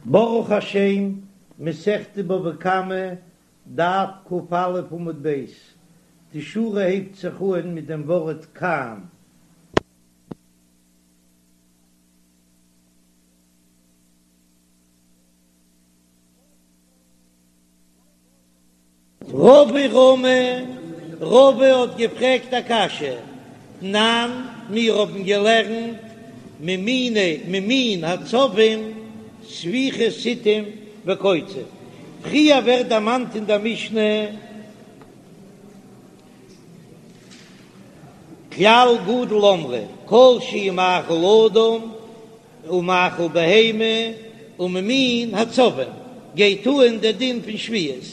ברוך השם, מסכת בבא קמא, דף ק"א עמוד ב', די שורה הייבט זיך אהן מיט דעם ווארט כאן. רבא רמי, רבא האט געפרעגט א קשיא, תנן, מיר האבן געלערנט ממיני ממין הצבים ספיחי סטים וקוצים, פריער ווערט דערמאנט אין דער משנה כלל גדול אמרו כל שהוא מאכל אדם ומאכל בהמה וממין הצבים גייט אהן דער דין פון שביעית,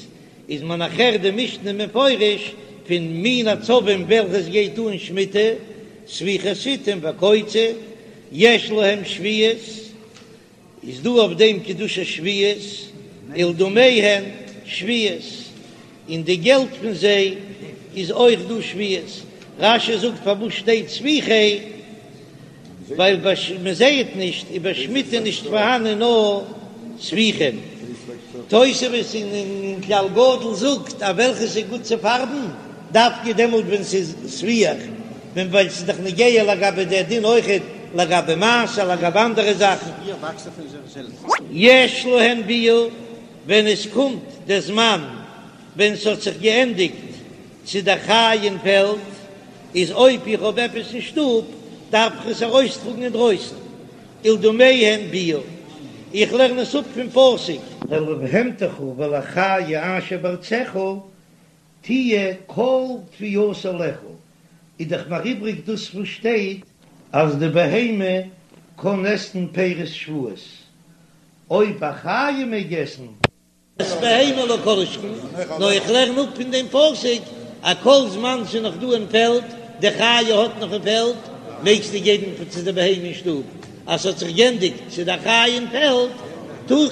איז מען נאכער די משנה מפרש פון מין הצבים וועלכעס גייט אהן שמיטה, ספיחי סטים וקוצים, יש להם שביעית, איז דא אויף דעם קדושת שביעית, ולדמיהן שביעית, און די געלט פון זיי איז אויך דא שביעית, רש"י זאגט פארוואס שטייט ספיחי, ווייל מען זייעט נישט איז ביי שמיטה נישט פארהאנען נאר ספיחים. תוספות אין כלל גדול זאגט אז וועלכעס איז גוט צו פארבן דווקא דעמאלט ווען ס'איז ספיח, ווען ווייל ס'איז דאך נוגע לגבי דער דין אויכעט לגבי מעשר לגבי אנדערע זאכן. יש להן ביעור, ווען עס קומט דער זמן ווען ס'האט זיך געענדיגט צו דער חיה אין פעלד, איז אויב איך האב עפעס אין שטוב דארף איך עס ארויסטראגן אינדרויסן, ולדמיהן ביעור, איך לערן עס אפ פון פסוק. ולבהמתך ולחיה אשר בארצך תהיה כל תבואתה לאכול, איז דאך מיר איבריג דאס וואס שטייט אז די בהמה קען עסן פירות שביעית, אויב א חיה מעג עסן. את בהמה לא כל שכן, נאר איך לערן אפ פון דעם פסוק אז כל זמן ס'איז נאך דא אין פעלד, די חיה האט נאך אין פעלד, מעגסטו געבן צו די בהמה אין שטוב, אז ס'האט זיך גענדיגט צו די חיה אין פעלד,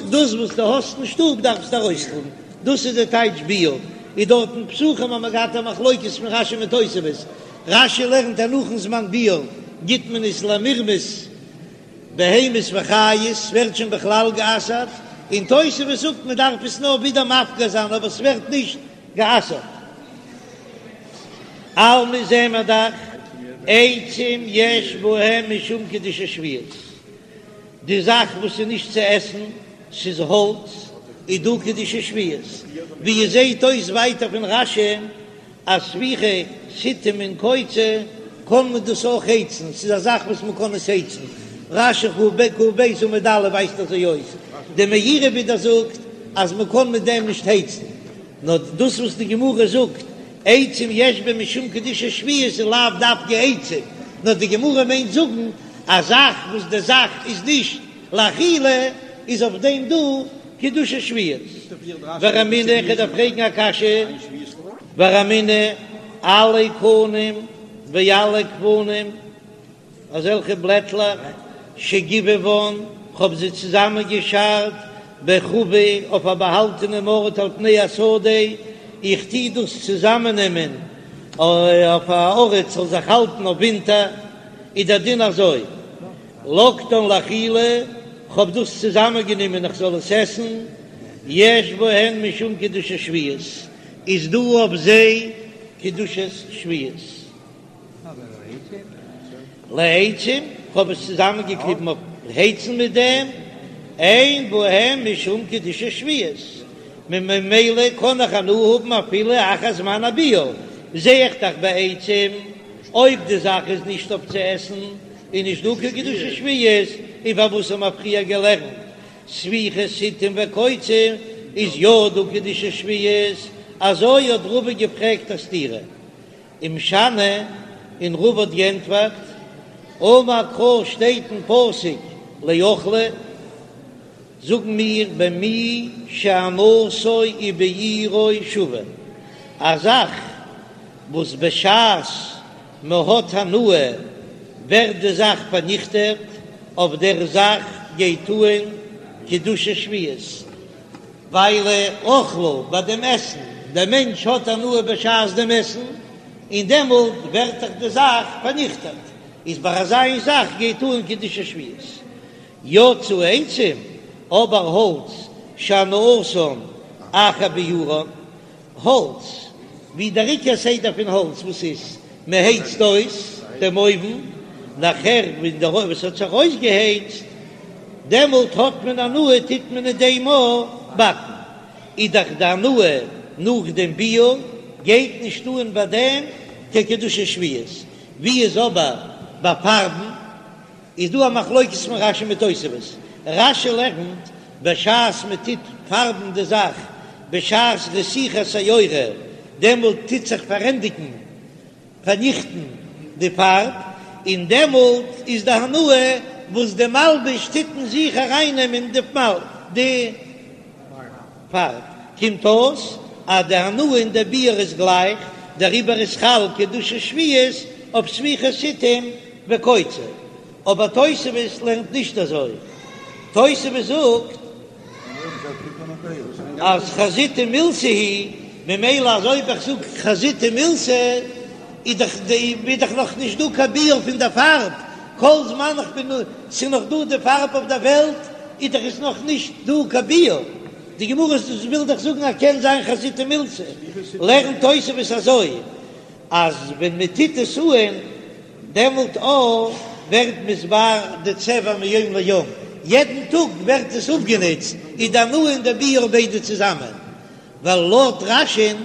דאס וואס דו האסט אין שטוב דארפסטו ארויסטראגן, דאס איז די טייטש ביעור. איז דארט אין פסחים האט מען געהאט א מחלוקת פון רש"י מיט תוספות, רש"י לערנט אז נאכן זמן ביעור גיט מען עס למרמס, בהמות וחיות ווערט שוין בכלל גע'אסר'ט, און תוספות זאגט מען דארף עס נאר ווידער מפקיר זיין אבער ס'ווערט נישט גע'אסר'ט. אלמא זעען מיר דאך עצים יש בהם משום קדושת שביעית, די זאך וואס איז נישט צו עסן, ס'איז האלץ, איז דא קדושת שביעית, ווי עס זעט אויס ווייטער פון רש"י אז ספיחי סטים און קוצים קען מען דאס אויך הייצן, ס'איז א זאך וואס מען קען עס הייצן, רש"י כ"ב עמוד א' ווייזט אזוי אויס, די מאירי ווידער זאגט אז מען קען מיט דעם נישט הייצן, נאר דאס וואס די גמרא זאגט עצים יש בהם משום קדושת שביעית איז לאו דווקא עצים, נאר די גמרא מיינט זאגן א זאך וואס די זאך איז נישט לאכילה איז אויף דעם דא קדושת שביעית. ורמינהו איך דארף פרעגן א קשיא. ורמינהו עלי קנים ועלי גפנים, אזעלכע בלעטלעך שגיבבן, כ'האב זיי צוזאמען געשארט בחבא אויף א באהאלטענעם ארט על פני השדה, איך טוה דאס צוזאמען נעמען אויף א ארט ס'זאל זיך האלטן אויף ווינטער, איז דער דין אזוי. לקטן לאכילה, כ'האב דאס צוזאמען גענומען איך זאל עס עסן, יש בהן משום קדושת שביעית, איז דא אויף זיי קדושת שביעית. לעצים, כ'האב עס צוזאמען געקליבן אויף הייצן מיט דעם, אין בהן משום קדושת שביעית, ממילא קען איך הנאה האבן אפילו אחר זמן הביעור, זע איך דאך בעצים, אויב די זאך איז נישט אויף צו עסן, איז נישט דא קיין קדושת שביעית, און פארוואס האבן מיר פריער געלערנט ספיחי סטים וקוצים איז יא דא קדושת שביעית, אזוי האט רבא געפרעגט א סתירה ומשני, און רבא האט געענטפערט, אמר קרא שטייט אין פסוק לאכלה, זאגן מיר במי שהנאתו וביעורו שוה, א זאך וואס בשעת מען האט הנאה ווערט די זאך פארניכטעט, אויף דער זאך גייט אהן קדושת שביעית, ווייל אכלה ביי דעם עסן, דער מענטש האט הנאה בשעת דעם עסן, און דעמאלט ווערט דאך די זאך פארניכטעט, איז ביי אזא איין זאך גייט אהן קדושת שביעית. יצאו עצים. אבער האלץ שהנאתן אחר ביעורן, האלץ, ווי דער עיקר סדר פון האלץ וואס איז, מען הייצט אויס דעם אויוון, נאכער ווען דער אויוון האט זיך אויסגעהייצט, דעמאלט האט מען הנאה, טוט מען אין דעם אויך באקן, איז דאך די הנאה נאך דעם ביעור גייט נישט אן ביי דעם קיין קדושת שביעית, ווי איז אבער ביי פארבן? איז דא א מחלוקת פון רש"י מיט תוספות, רש"י לערנט בשעת מען טוט פארבן די זאך בשעת רתיחת היורה דעמאלט טוט זיך פארענדיגן פארניכטן די פארב, און דעמאלט איז די הנאה וואס די מלבוש טוט אין זיך ארייננעמען די פארב, קומט אויס אז די הנאה און די ביעור איז גלייך, דעריבער איז חל קדושת שביעית אויף ספיחי סתים וקוצה, אבער תוספות לערנט נישט אזוי, תוספות זאגט אז חזיתא מילתא היא, ממילא אז אויב איך זאג חזיתא מילתא איז דאך די איז דאך נאך נישט דא קיין ביעור פון די פארב, כל זמן איך בין ס'איז נאך דא די פארב אויף דער וועלט איז דאך עס נאך נישט דא קיין ביעור, די גמרא וויל דאך זאגן אז קען זיין חזיתא מילתא, לערנט תוספות אזוי אז ווען מען טוט עס אהן דעמאלט אויך ווערט מתבאר די צבע מיום ליום, יעדן טאג ווערט עס אפגענוצט, איז די הנאה און די ביעור ביידע צוזאמען, ווייל לויט רש"י'ן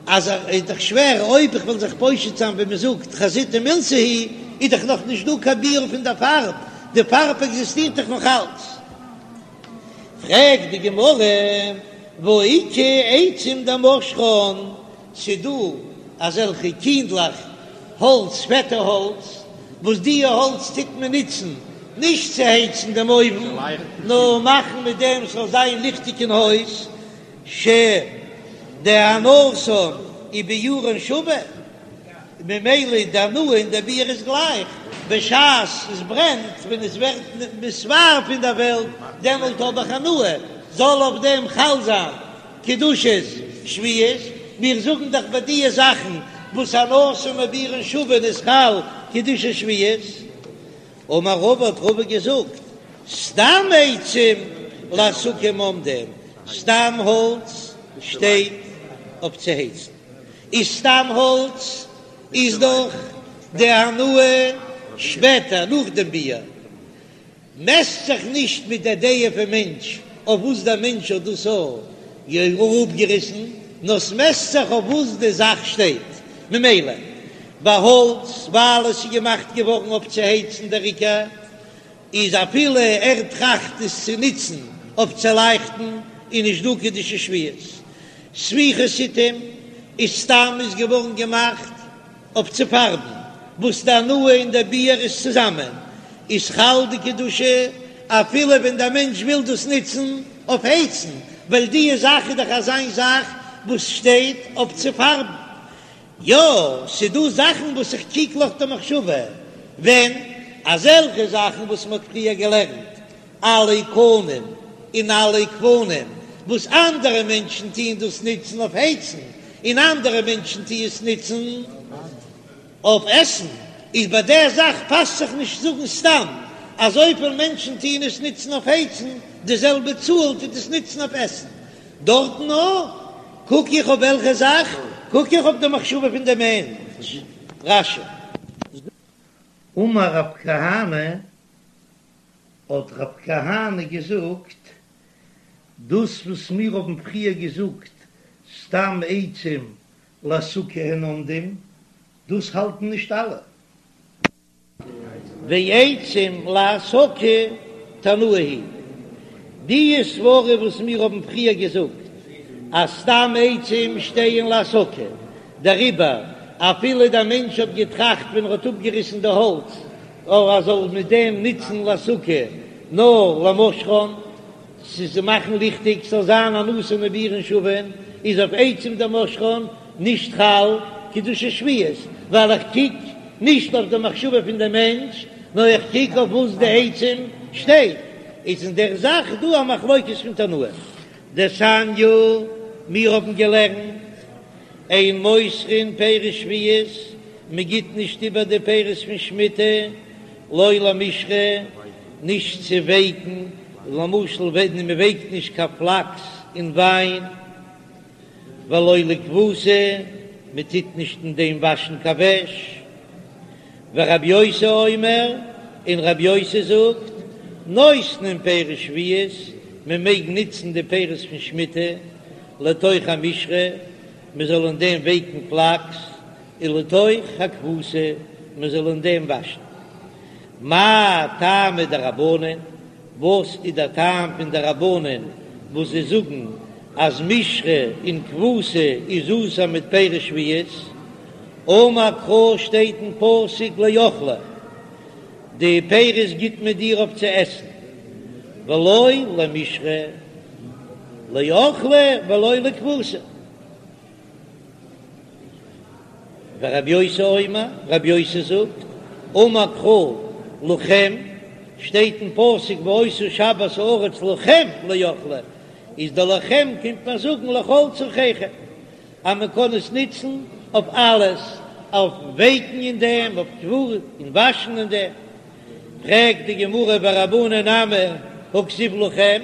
אז איז דאך שווער אויב איך וועל זיך פושט זיין ווי מען זאגט חזיתא מילתא היא, איז דאך נאך נישט דא קיין ביעור פון די פארב, די פארב עקזיסטירט דאך נאך אלץ. פרעגט די גמרא, והא איכא עצים דמשחן, ס'דא אזעלכע קינדלעך האלץ, פעטע האלץ, וואס די האלץ טוט מען נוצן נישט צו הייצן דעם אויוון, נאר מאכן מיט דעם ס'זאל זיין ליכטיג אין הויז, שדהנאתן וביעורן שווה, ממילא די הנאה און די ביעור איז גלייך, בשעת עס ברענט, ווען עס ווערט מתבאר פון דער וועלט, דעמאלט האב איך הנאה, זאל אויף דעם חל זיין קדושת שביעית, מיר זאגן דאך ביי דיע זאכן וואס הנאתן וביעורן שווין איז חל קדושת שביעית. אמר רבא האט רבא געזאגט, סתם עצים להסקה הם עומדים, סתם האלץ שטייט אויף צו הייצן, איז סתם האלץ איז דאך די הנאה שפעטער נאך דעם ביעור, מעסט זיך נישט מיט דער דעה פון מענטש אויף וואס דער מענטש האט דאס אראפגעריסן, נאר ס'מעסט זיך אויף וואס די זאך שטייט. ממילא ביי האלץ, ווייל עס איז געמאכט געווארן אויף צו הייצן דער עיקר איז אפילו ער טראכט עס צו נוצן אויף צו לייכטן איז נישט דא קדושת שביעית. ספיחי סתים איז סתם איז געווארן געמאכט אויף צו פארבן, וואס די הנאה און די ביעור איז צוזאמען, איז חל די קדושה אפילו ווען דער מענטש וויל דאס נוצן אויף הייצן, ווייל די זאך איז דאך אזיין זאך וואס שטייט אויף צו פארבן. יא, ס'דא זאכן וואס איך קוק נאך די מחשבה, ווען אזעלכע זאכן וואס מ'האט פריער געלערנט, עלי קנים און עלי גפנים, וואס אנדערע מענטשן טוען דאס נוצן אויף הייצן, און אנדערע מענטשן טוען עס נוצן אויף עסן, איז ביי דער זאך פאסט זיך נישט זאגן סתם אז אזויפיל מענטשן טוען עס נוצן אויף הייצן, די זעלבע צאל טוט עס נוצן אויף עסן. דארטן נאר קוק איך אויף וועלכע זאך? קוק איך אויף די מחשבה פון די מענטש. רש"י. אמר רב כהנא, האט רב כהנא געזאגט, דאס וואס מיר האבן פריער געזאגט סתם עצים להסקה הן עומדים, דאס האלטן נישט אלע. ועצים להסקה תנאי היא די סברה וואס מיר האבן פריער געזאגט אז סתם עצים שטייען להסקה, דעריבער אפילו דער מענטש האט געטראכט ווען ער האט אפגעריסן די האלץ אויב ער זאל מיט דעם נוצן להסקה נאר למשחן, ס'איז צו מאכן ליכטיג, ס'זאל זיין הנאתן וביעורן שווין, איז אויף עצים דמשחן נישט חל קדושת שביעית, ווייל איך קוק נישט אויף די מחשבה פון די מענטש, נאר איך קוק אויף וואס די עצים שטייט, איז אין דער זאך דא א מחלוקת פון תנאים. דתניא, מיר האבן געלערנט, אין מוסרין פירות שביעית, מען גיט נישט איבער די פירות פון שמיטה, לא למשרה, נישט צו ווייקן. למשל ווען מען ווייקט נישט קיין פלאקס אין וויין, ולא לכבוסה, מען טוט נישט אין דעם וואשן קיין וועש. ורבי יוסי אומר, און רבי יוסי זאגט, נותנין פירות שביעית, מען מעג נוצן די פירות פון שמיטה, לתוך המשרה, מען זאל אין דעם ווייקן פלאקס, ולתוך הכבוסה, מען זאל אין דעם וואשן. מאי טעמא דרבנן, וואס איז דער טעם פון די רבנן וואס זיי זאגן אז משרה און כבוסה איז אסור מיט פירות שביעית? אמר קרא שטייט אין פסוק לאכלה, די פירות גיט מען דיר אויף צו עסן, ולא למשרה, לאכלה ולא לכבוסה. ורבי יוסי אומר, רבי יוסי זאגט, אמר קרא לכם, שטייט אין פסוק והיתה שבת הארץ לכם לאכלה, איז די לכם קומט מען זאגן לכל צרכיכם, אז מען קען עס נוצן אויף אלעס, אויף ווייקן אין דעם, אויף כבוסה און וואשן אין דעם. פרעגט די גמרא ורבנן נמי הכתיב לכם,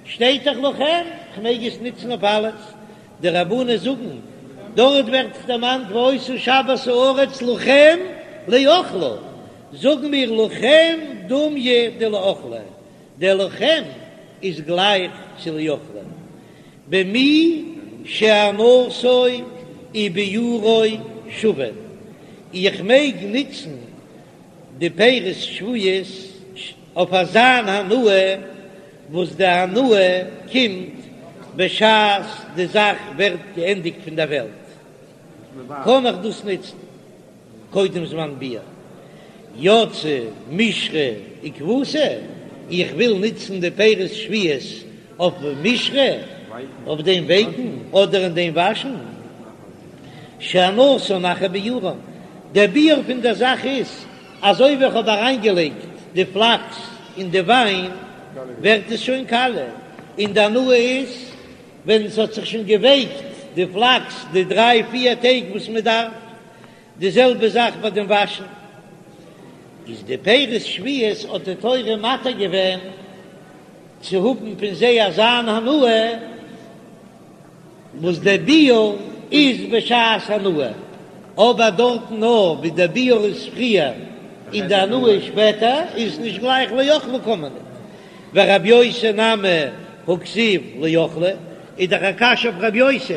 שטייט דאך לכם, כ'מעג עס נוצן אויף אלעס, די רבנן זאגן, דארט ווערט דערמאנט והיתה שבת הארץ לכם לאכלה, זאגן מיר לכם דומיא דלאכלה, דער לכם איז גלייך צו לאכלה, במי שהנאתו וביעורו שווין, איך מעג נוצן די פירות שביעית אויף אזאן הנאה וואס די הנאה קומט בשעת די זאך ווערט געענדיגט פון דער וועלט, קען איך דאס נוצן קודם זמן ביעור. יצא משרה וכבוסה, איך וויל נוצן די פירות שביעית אויף משרה, אויף דעם ווייקן אדער אין דעם וואשן, שהנאתן אחר ביעורן, דער ביעור פון דער זאך איז אזוי ווי איך האב אריינגעלייגט די פלאקס אין די וויין ווערט עס שוין קאליע, און די הנאה איז ווען עס האט זיך שוין געווייקט די פלאקס די דריי פיר טעג וואס מען דארף, די זעלבע זאך ביי דעם וואשן, איז די פירות שביעית האט די תורה מתיר געווען צו האבן פון זיי אזאן הנאה, וואס דער ביעור איז בשעת הנאה, אבער דארטן נאר ווי דער ביעור איז פריער און די הנאה איז שפעטער, איז נישט גלייך לאכלה קען מען ניט. ורבי יוסי נמי הכתיב לאכלה, איז דאך א קשיא אויף רבי יוסי,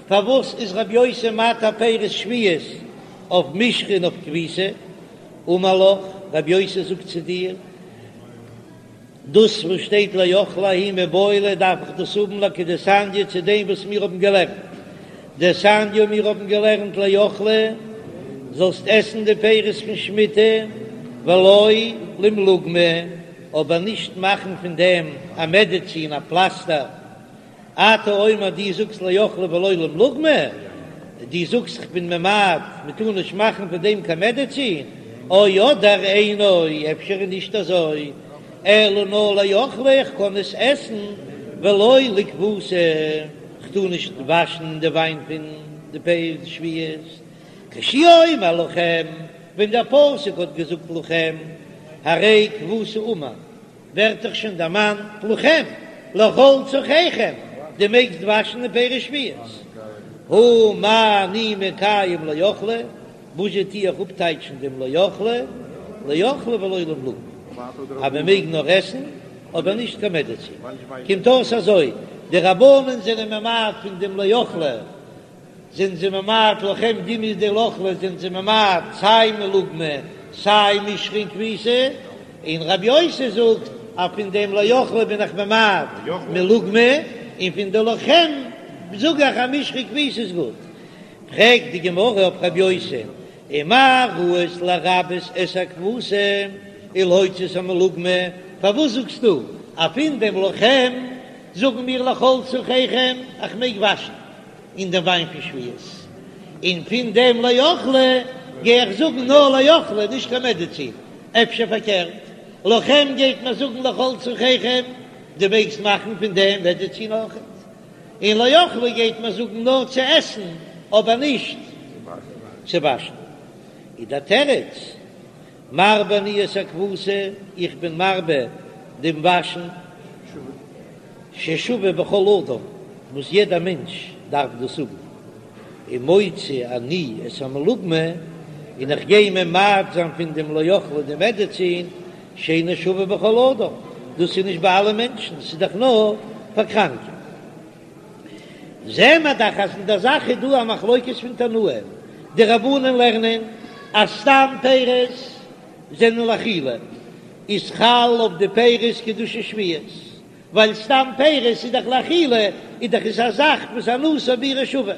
פארוואס איז רבי יוסי מתיר פירות שביעית אויף משרה און אויף כביסה? אמר לך, רבי יוסי זאגט צו דיר, דאס וואס שטייט לאכלה ההוא מיבעי ליה דארף איך דאס האבן לכדתניא צו דעם וואס מיר האבן געלערנט דתניא מיר האבן געלערנט לאכלה זאלסט עסן די פירות פון שמיטה ולא למלוגמא אבער נישט מאכן פון דעם א מעדעצין א פלאסטער אתה אומר דו זאגסט לאכלה ולא למלוגמא, דו זאגסט כ'בין ממעט מ'טאר נישט מאכן פון דעם קיין מעדעצין, או אדער אינו, אפשר איז נישט אזוי, אלא נאר לאכלה איך קען עס עסן, ולא לכבוסה, כ'טאר נישט וואשן די וויין פון די פירות שביעית, כשהוא אומר לכם, ווען דער פסוק האט געזאגט לכם, הרי כבוסה אמור. ווערט דאך שוין דערמאנט לכם, לכל צרכיכם, דו מעגסט וואשן די פירות שביעית. הא מה אני מקיים לאכלה, וואס זשע טו איך אפטייטשן דעם לאכלה, לאכלה ולא למלוגמא, אז מען מעג נאר עסן, אבער נישט קיין מעדעצין. קומט אויס אזוי, די רבנן זענען ממעט פון דעם לאכלה, זענען זיי ממעט לכם דומיא דלאכלה זענען זיי ממעט סיי מלוגמא סיי משרה און כביסה, און רבי יוסי זאגט אז פון דעם לאכלה בין איך ממעט מלוגמא, און פון די לכם זאג איך אז משרה וכביסה איז גוט. פרעגט די גמרא אויף רבי יוסי, ומה ראית לרבות את הכבוסה ולהוציא את המלוגמא, פארוואס זאגסטו אז פון דעם לכם זאגן מיר לכל צרכיכם איך מעג וואשן אין דעם וויין פון שביעית, און פון דעם לאכלה גיי איך זאגן נאר לאכלה נישט קיין מעדעצין, אפשר פארקערט, לכם גייט מען זאגן לכל צרכיכם, דו מעגסט מאכן פון דעם מעדעצין אויכעט, און לאכלה גייט מען זאגן נאר צו עסן אבער נישט צו וואשן, איז דער תירוץ, מרבה אני את הכבוסה, איך בין מרבה דעם וואשן. ששווה בכל אדם, וואס יעדער מענטש דארף דאס האבן, ומוציא אני את המלוגמא, און איך גיי ממעט זיין פון דעם לאכלה די מעדעצין, שאינו שווה בכל אדם, דאס איז נישט ביי אלע מענטשן, ס'איז דאך נאר פאר קראנקע. זעען מיר דאך אז אין דער זאך איז דא א מחלוקת פון תנאים, די רבנן לערנען אז סתם פירות זענען לאכילה, איז חל אויף די פירות קדושת שביעית, ווייל סתם פירות איז דאך לאכילה, איז דאך עס א זאך וואס הנאתו וביעורו שווה.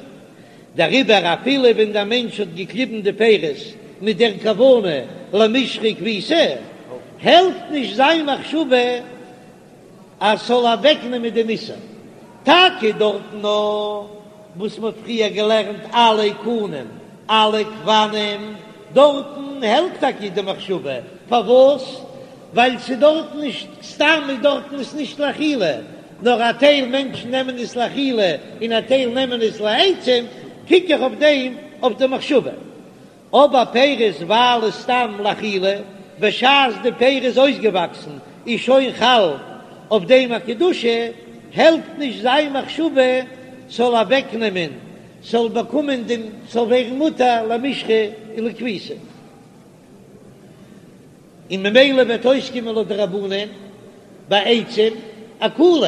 דעריבער אפילו ווען דער מענטש האט געקליבן די פירות מיט דער כוונה למשחה וכביסה, העלפט נישט זיין מחשבה אז ס'זאל אוועקנעמען דעם איסור. טאקע דארטן נאר וואס מ'האט פריער געלערנט עלי קנים עלי גפנים, דארטן העלפט טאקע די מחשבה, פארוואס? ווייל ס'איז דארטן נישט סתם איז דארטן עס נישט לאכילה, נאר א טייל מענטשן נעמען עס לאכילה און א טייל נעמען עס לעצים, קוק איך אויף דעם אויף די מחשבה. אבער פירות ווייל איז סתם לאכילה, בשעת די פירות איז אויסגעוואקסן איז שוין חל אויף דעם א קדושה, העלפט נישט זיין מחשבה ס'זאל אוועקנעמען ס'זאל באקומען דעם ס'זאל ווערן מותר למשחה און לכביסה. און ממילא וועט אויסקומען לויט די רבנן ביי עצים א קולא.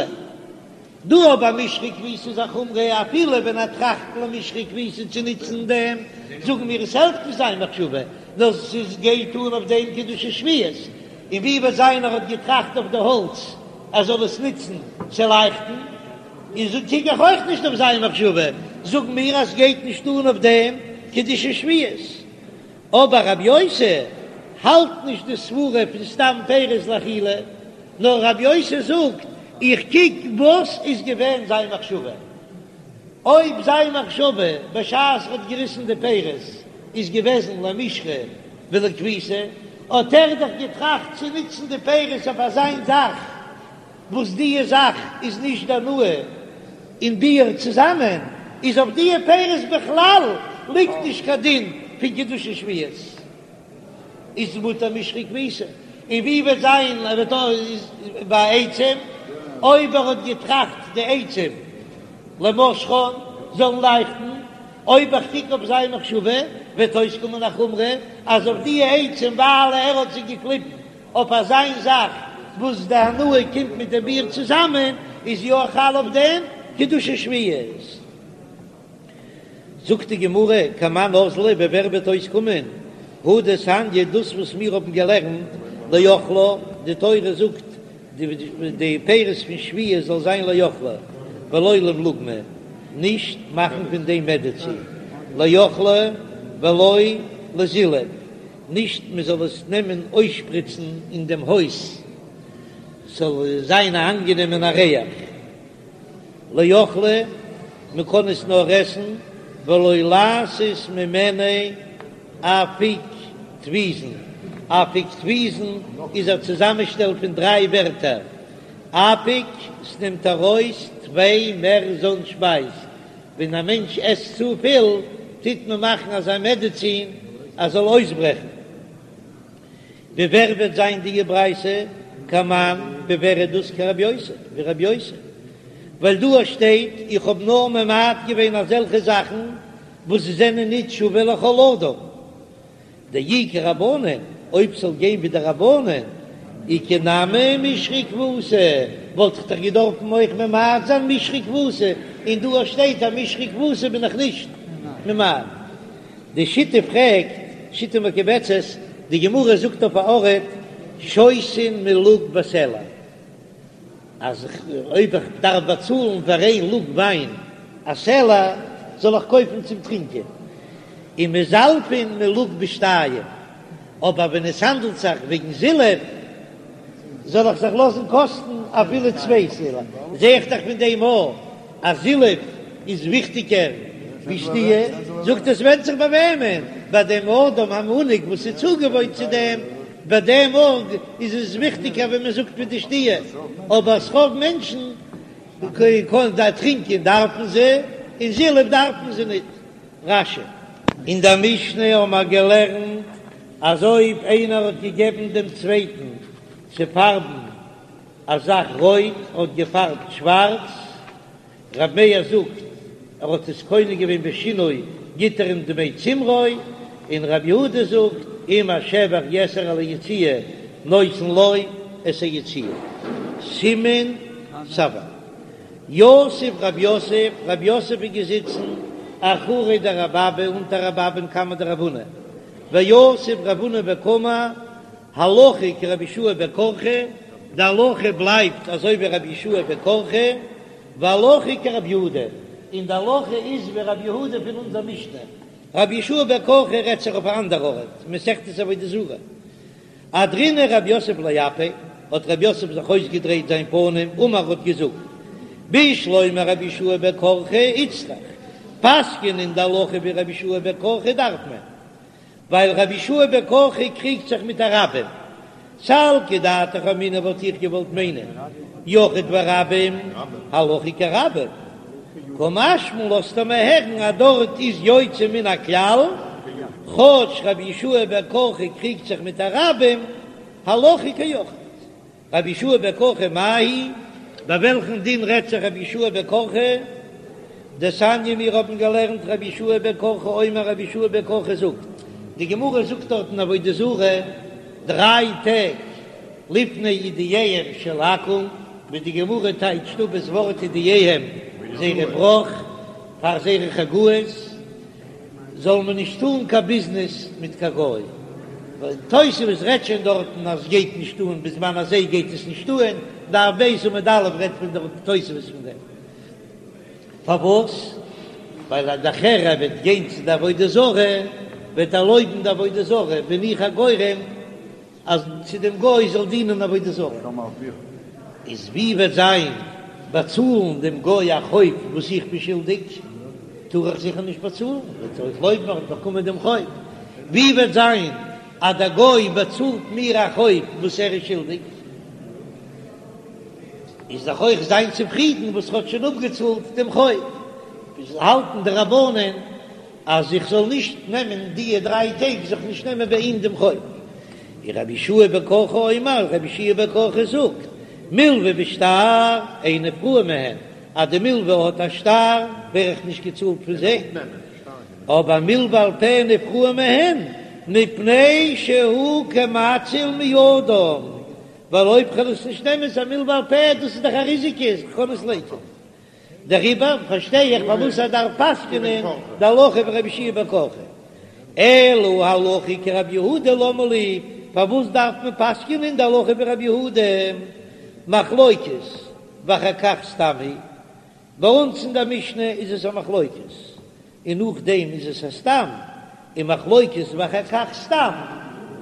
דא אבער משחה וכביסה איז א חומרא אפילו ווען ער טראכט למשחה וכביסה צו נוצן דעם, זאגן מיר עס העלפט נישט זיין מחשבה, נאר ס'איז גייט אן אויף דעם קדושת שביעית, און ווי וועט זיין ער האט געטראכט אויף די האלץ ער זאל עס נוצן צו לייכטן, איז קוק איך אויך נישט אויף זיין מחשבה, זאגן מיר אז ס'גייט נישט אן אויף דעם קדושת שביעית. אבער רבי יוסי האלט נישט די סברה פון סתם פירות לאכילה, נאר רבי יוסי זאגט, איך קוק וואס איז געווען זיין מחשבה, אויב זיין מחשבה בשעת ער האט געריסן די פירות איז געוועזן למשחה ולכביסה, האט ער דאך געטראכט צו נוצן די פירות אויף אזיין זאך וואס דיע זאך איז נישט די הנאה און ביעור צוזאמען, איז אויף דיע פירות בכלל ליגט נישט קיין דין פון קדושת שביעית, איז מותר משחה וכביסה, און ווי וועט זיין ער וועט איז ביי עצים, אויב ער האט געטראכט די עצים למשחן זאלן לייכטן, אויב איך קוק אויף זיין מחשבה וועט אויסקומען א חומרא אז אויף דיע עצים ווייל ער האט זיי געקליבן אויף אזיין זאך וואס די הנאה קומט מיט די ביעור צוזאמען, איז יא חל אויף דעם קדושת שביעית. זאגט די גמרא, כמאן אזלא, ווי ווער וועט אויסקומען, הא דתניא, דאס וואס מיר האבן געלערנט, לאכלה, די תורה זאגט די פירות פון שביעית זאל זיין לאכלה, ולא למלוגמא, נישט מאכן פון דעם מעדעצין, לאכלה ולא לזילוף, נישט מען זאל עס נעמען אויסשפריצן אין דעם הויז ס'זאל זיין א אנגענעמענע ריח, לאכלה, מען קען עס נאר עסן, ולא לעשות ממנו אפיקטויזין, אפיקטויזין איז א צוזאמענשטעל פון דריי ווערטער, אפיק, ס'נעמט ארויס, טפי, מער זן שפייז, ווען א מענטש עסט צופיל טוט מען מאכן אזא מעדעצין אז זאל אויסברעכן. ווי ווער וועט זיין די ברייתא? כמאן ווי ווער איז דאס כרבי יוסי ווי רבי יוסי ווייל דא שטייט איך האב נאר ממעט געווען אזעלכע זאכן וואס זענען ניט שווה לכל אדם. דאי כרבנן, אויב ס'זאל גיין ווי די רבנן, איכא נמי משחה וכבוסה, וואלט איך דאך געדארפן אויך ממעט זיין משחה וכבוסה, און דא שטייט אז משחה וכבוסה בין איך נישט ממעט. די שיטה פרעגט, שיטה מקובצת, די גמרא זאגט אויף א ארט, שותין מלוג בסלע. אז אויב איך דארף באצאלן פאר איין לוג וויין א סלע, זאל איך קויפן צום טרינקען, ומזלפין מלוג בשתיים, אבער ווען עס האנדלט זיך וועגן זילוף, זאל איך זיך לאזן קאסטן אפילו צוויי סלע, זע איך דאך פון דעם אויך אז זילוף איז וויכטיגער ווי שתיה, זאגט עס ווענדט זיך ביי וועמען, ביי דעם אדם המנהיג וואס איז צוגעוואוינט צו דעם, ביי דעם ארג איז עס וויכטיגער ווי מען זאגט ווי די שתיה, אבער ס'רוב מענטשן קען טרינקען דארפן זיי, און זילוף דארפן זיי ניט. רש"י. אין דער משנה האבן מיר געלערנט אז אויב איינער האט געגעבן דעם צווייטן צו פארבן. א זאך רויט האט געפארבט שווארץ, ר' מאיר זאגט ער האט עס קונה געווען בשינוי גיט ער אים דמי צמרו, און ר' יהודה זאגט אם השבח יתר על היציאה נותן לו את היציאה. סימן סבא. יתיב רב יוסף, רב יוסף איז געזיצן אחורי דרב אבא אונטער רב אבא'ן קמיה דרב הונא, ויתיב רב הונא וקאמר הלכה כרבי יהושע בן קרחה, די הלכה בלייבט אזוי ווי רבי יהושע בן קרחה, והלכה כרבי יהודה, און די הלכה איז ווי רבי יהודה פון אונזער משנה, רבי יהושע בן קרחה רעדט זיך אויף א אנדער ארט, מסכת עבודה זרה. אהדרינהו רב יוסף לאפיה, האט רב יוסף זיך אויסגעדרייט זיין פנים, אמר האט געזאגט, בשלמא רבי יהושע בן קרחה איצטריך, פסק'ענען די הלכה ווי רבי יהושע בן קרחה דארף מען, ווייל רבי יהושע בן קרחה קריגט זיך מיט א רבים, סלקא דעתך אמינא וואלט איך געוואלט מיינען יחיד ורבים הלכה כרבים, קא משמע לן לאזט ער מיר הערן אז דארט איז יוצא מן הכלל, כאטש רבי יהושע בן קרחה קריגט זיך מיט א רבים, הלכה כיחיד. רבי יהושע בן קרחה מאי היא? ביי וועלכן דין רעדט זיך רבי יהושע בן קרחה? דתניא מיר האבן געלערנט רבי יהושע בן קרחה אומר רבי יהושע בן קרחה זאגט, די גמרא זאגט דארט אין עבודה זרה דריי טעג לפני אידייהם של עכו"ם, ווי די גמרא טייטשט אפ דאס ווארט אידייהם זייערע בראך פאר זייערע חגאות. זאל מען נישט טאן קיין ביזנעס מיט קיין גוי, ווייל תוספות רעדט שוין דארטן אז גייט נישט אן בזמן הזה גייט עס נישט אן, דף ב' עמוד א' רעדט פון דער תוספות פון דעם, פארוואס? ווייל אז נאכער ער וועט גיין צו די עבודה זרה וועט ער לויבן די עבודה זרה, בין איך א גורם אז צו דעם גוי זאל דינען עבודה זרה, איז ווי וועט זיין באצאלן דעם גוי א חוב וואס איך בין שולדיג, טאר איך זיכער נישט באצאלן, וועט ער אויך לויבן ער האט באקומען דעם חוב, ווי וועט זיין אז דער גוי באצאלט מיר א חוב וואס ער איז שולדיג, איז דאך אויך זיין צופרידן וואס ער האט שוין אפגעצאלט דעם חוב, האלטן די רבנן. אז איך זאל נישט נעמען דיע דריי טעג זיך נישט נעמען ביי אים דעם חוב. און רבי יהושע בן קרחה אומר, רבי יהושע בן קרחה זאגט, מלוה בשטר אין נפרעין מהן, אז די מלוה האט א שטר ווער איך נישט געצאלט פון זיי, אבער מלוה על פה נפרעין מהן, מפני שהוא כמציל מידם, ווייל אויב כ'וועל עס נישט נעמען איז א מלוה על פה, דאס איז דאך א ריזיקע, איך קען עס לייקענען. דעריבער פארשטיי איך פארוואס ער דארף פסק'נען די הלכה ווי רבי יהושע בן קרחה. אלא הלכה כרבי יהודה למה לי, פארוואס דארף מען פסק'נען די הלכה ווי רבי יהודה? מחלוקת ואחר כך סתם היא, ביי אונז אין דער משנה איז עס א מחלוקת, און נאכדעם איז עס א סתם, און מחלוקת ואחר כך סתם,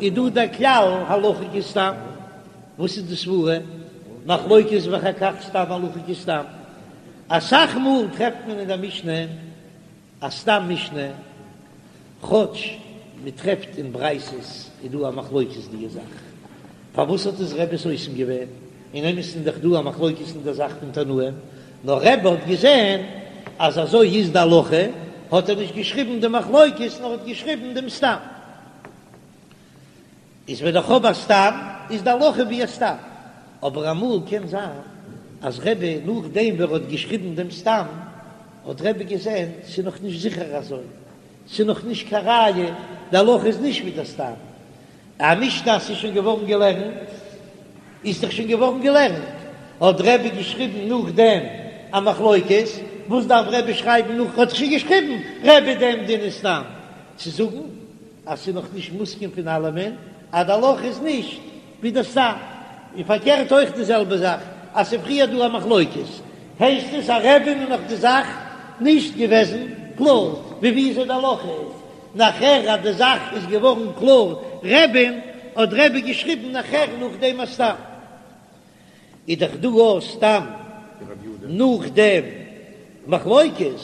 איז דא דער כלל הלכה כסתם, וואס איז די סברה? מחלוקת ואחר כך סתם הלכה כסתם, אסאך מאל טרעפט מען אין דער משנה א סתם משנה, כאטש מען טרעפט אין ברייתות איז דא א מחלוקת די זאך, פארוואס האט עס רבי סותם געווען? אין אמת איז דאך דא א מחלוקת אין דער זאך פון תנאים, נאר רבי האט געזען אז אזוי איז די הלכה, האט ער נישט געשריבן די מחלוקת נאר האט געשריבן דעם סתם. איז ווען איך האב א סתם איז די הלכה ווי א סתם, אבער אמאל קען זיין אז רבי נאכדעם ווי ער האט געשריבן דעם סתם האט רבי געזען ס'איז נאך נישט זיכער אזוי, ס'איז נאך נישט קיין ראיה, די הלכה איז נישט ווי די סתם. א משנה אז ס'איז שוין געווארן געלערנט, איז דאך שוין געווארן געלערנט, האט רבי געשריבן נאכדעם א מחלוקת, וואס דארף רבי שרייבן נאך, האט שוין געשריבן רבי דעם דין איז סתם צו זאגן אז ס'איז נאך נישט מוסכם פון אלעמען אז די הלכה איז נישט ווי די סתם, און פארקערט אויך די זעלבע זאך אז ס'איז פריער דא א מחלוקת הייסט עס אז רבי'ן איז נאך די זאך נישט געוועזן קלאר ווי וויאזוי די הלכה איז. נאכער אז די זאך איז געווארן קלאר רבי'ן, האט רבי געשריבן נאכער נאך דעם א סתם. איז דאך דא א סתם נאך דעם מחלוקת,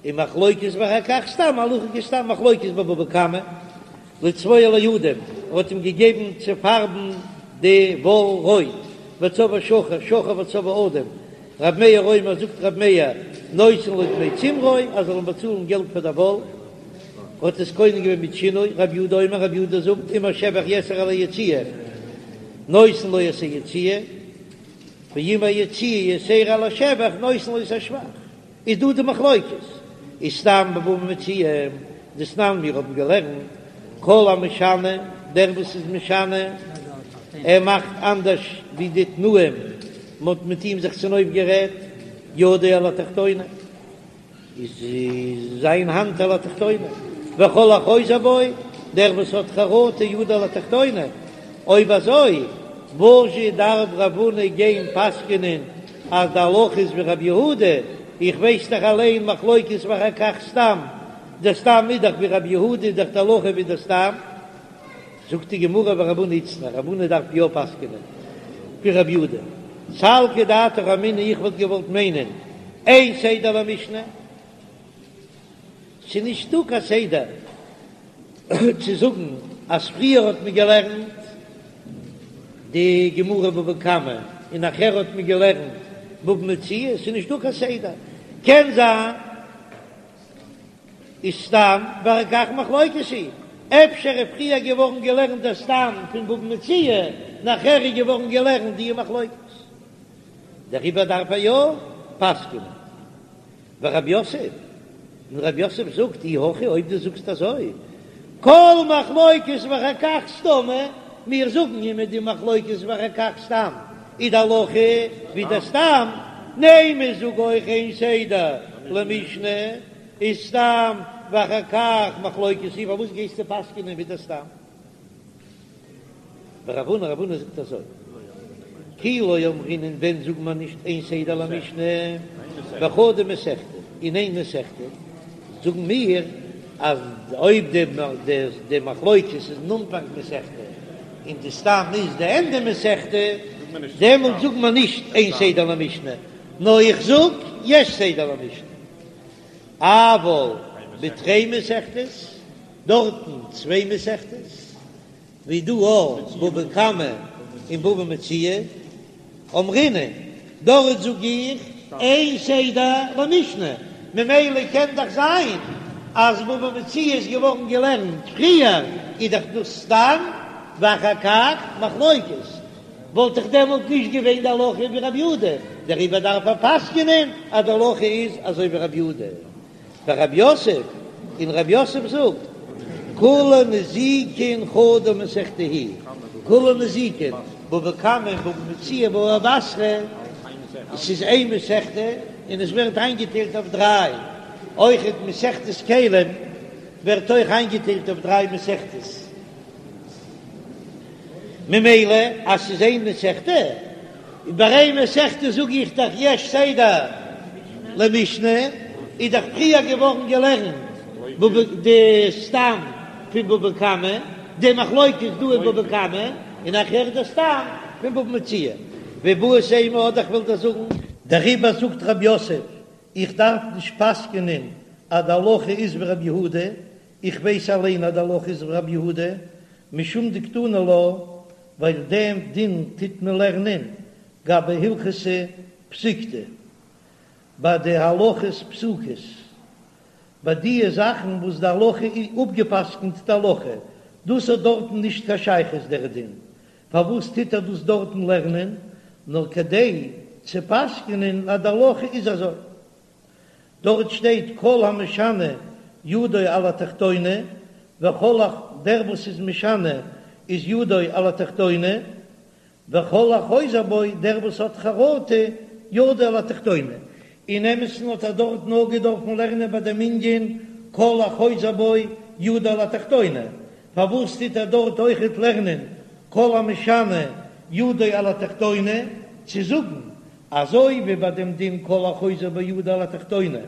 און מחלוקת ואחר כך סתם הלכה כסתם מחלוקת בבבא קמא, לצבוע לאדום, ער האט אים געגעבן צו פארבן די וואל רויט, וצבעו שחור, שחור וצבעו אדום, רב מאיר אומר זאגט רב מאיר נותן לו דמי צמרו אז זאל אים באצאלן געלט פאר די וואל, האט עס קונה געווען מיט שינוי, רב יהודה אומר רב יהודה זאגט אם השבח יתר על היציאה נותן לו את היציאה. ואם היציאה יתירה על השבח נותן לו את השבח, איז דא די מחלוקת, איז סתם בבבא מציעא, דתנן מיר האבן געלערנט כל המשנה, דער וואס איז משנה, ער מאכט אנדערש ווי די תנאים, מען האט מיט אים זיך צונויפגערעדט, ידו על התחתונה. איז זיין האנט על התחתונה, וכל החוזר בו, דער וואס האט חרטה ידו על התחתונה, אויב אזוי וואזשע דארף רב הונא גיין פסק'נען אז די הלכה איז ווי רבי יהודה, איך ווייס דאך אליין מחלוקת ואחר כך סתם, דער סתם איז דאך ווי רבי יהודה איז דאך די הלכה ווי דער סתם. זאגט די גמרא ורב הונא איצטריך, רב הונא דארף יא פסק'נען ווי רבי יהודה, סלקא דעתך אמינא איך וואלט געוואלט מיינען אין סדר למשנה, ס'איז נישטא קיין סדר צו זאגן אז פריער האט מען געלערנט די גמרא בבא קמא און נאכער האט מען געלערנט בבא מציעא, ס'איז נישטא קיין סדר, קען זיין. איז סתם ואחר כך מחלוקת היא, אפשר איז פריער געווארן געלערנט דער סתם פון בבא מציעא, נאכער איז געווארן געלערנט די מחלוקת, דעריבער דארף ער יא פסק'נען. ורב יוסף, און רב יוסף זאגט, אי הכי אויב דו זאגסט אזוי, כל מחלוקת ואחר כך סתמא, מיר זאגן אימער די מחלוקת ואחר כך סתם איז די הלכה ווי דער סתם, נימא זאג אויך אין סדר למשנה איז סתם ואחר כך מחלוקת היא, פארוואס גייסטו פסק'נען ווי דער סתם? ורב הונא רב הונא זאגט אזוי, כי לא אמרינן ווען זאגט מען נישט אין סדר למשנה בחדא מסכתא, אין איין מסכתא זאגן מיר אז אויב די מחלוקת איז אין אנפאנג מסכתא און די סתם איז די ענדע מסכתא, דעמאלט זאגט מען נישט אין סדר למשנה, נאר איך זאג יש סדר למשנה. אבל בתרי מסכתות, דארטן צוויי מסכתות, ווי דא אויך בבא קמא און בבא מציעא, אמרינן, דארט זאג איך אין סדר למשנה, ממילא קען דאך זיין אז בבא מציעא איז געווארן געלערנט פריער, איז דאך דאס סתם ואחר כך מחלוקת, וואלט דאך דעמאלט נישט געווען די הלכה ווי רבי יהודה, דעריבער דארף ער פסק'נען אז די הלכה איז אזוי ווי רבי יהודה. ורב יוסף, און רב יוסף זאגט, כולה נזיקין חדא מסכתא היא, כולה נזיקין, בבא קמא און בבא מציעא בבא בתרא, עס איז איין מסכתא און עס ווערט איינגעטיילט אויף דריי, אויכעט מסכת כלים ווערט אויך איינגעטיילט אויף דריי מסכתות. ממילא אז ס'איז איין מסכתא, און ביי איין מסכתא זאג איך דאך יש סדר למשנה, איז דאך פריער געווארן געלערנט די סתם פון בבא קמא, די מחלוקת דא אין בבא קמא, און נאכהער די סתם פון בבא מציעא. ואיבעית אימא אדער כ'וועל דיר זאגן. דעריבער זאגט רב יוסף, איך דארף נישט פסק'נען אז די הלכה איז ווי רבי יהודה, איך ווייס אליין אז די הלכה איז ווי רבי יהודה, משום דקתני לה, ווייל דעם דין טוט מען לערנען גבי הלכתא פסיקתא, ביי די הלכות פסוקות, ביי דיע זאכן וואס די הלכה איז אפגעפסקנט די הלכה, דאס האט דארטן נישט קיין שייכות דער דין, פארוואס טוט ער דאס דארטן לערנען, נאר כדי צו פסק'נען אז די הלכה איז אזוי. דארט שטייט כל המשנה ידו על התחתונה, וכל ה דער וואס איז משנה איז ידו על התחתונה, וכל החוזר בו דער וואס האט חרטה ידו על התחתונה, אין אמת'ן האט ער דארט נאר געדארפן לערנען ביי דעם ענין כל החוזר בו ידו על התחתונה, פארוואס טוט ער דארט אויכעט לערנען כל המשנה ידו על התחתונה, צו זאגן אזוי ווי ביי דעם דין כל החוזר בו ידו על התחתונה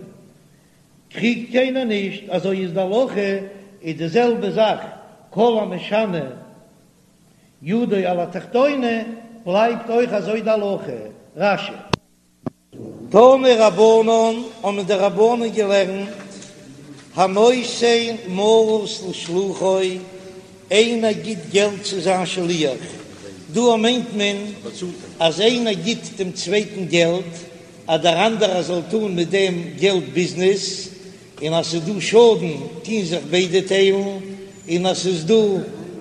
קריגט קיינער נישט, אזוי איז די הלכה, איז די זעלבע זאך כל המשנה ידו על התחתונה בלייבט אויך אזוי די הלכה. רש"י. תנו רבנן, האבן די רבנן געלערנט, הנותן מעות לשלוחו, איינער גיט געלט צו זיין שליח, דא מיינט מען אז איינער גיט דעם צווייטן געלט אז דער אנדערער זאל טון מיט דעם געלט ביזנעס, און אז ס'איז דא שאדן טוהן זיך ביידע טיילן, און אז ס'איז דא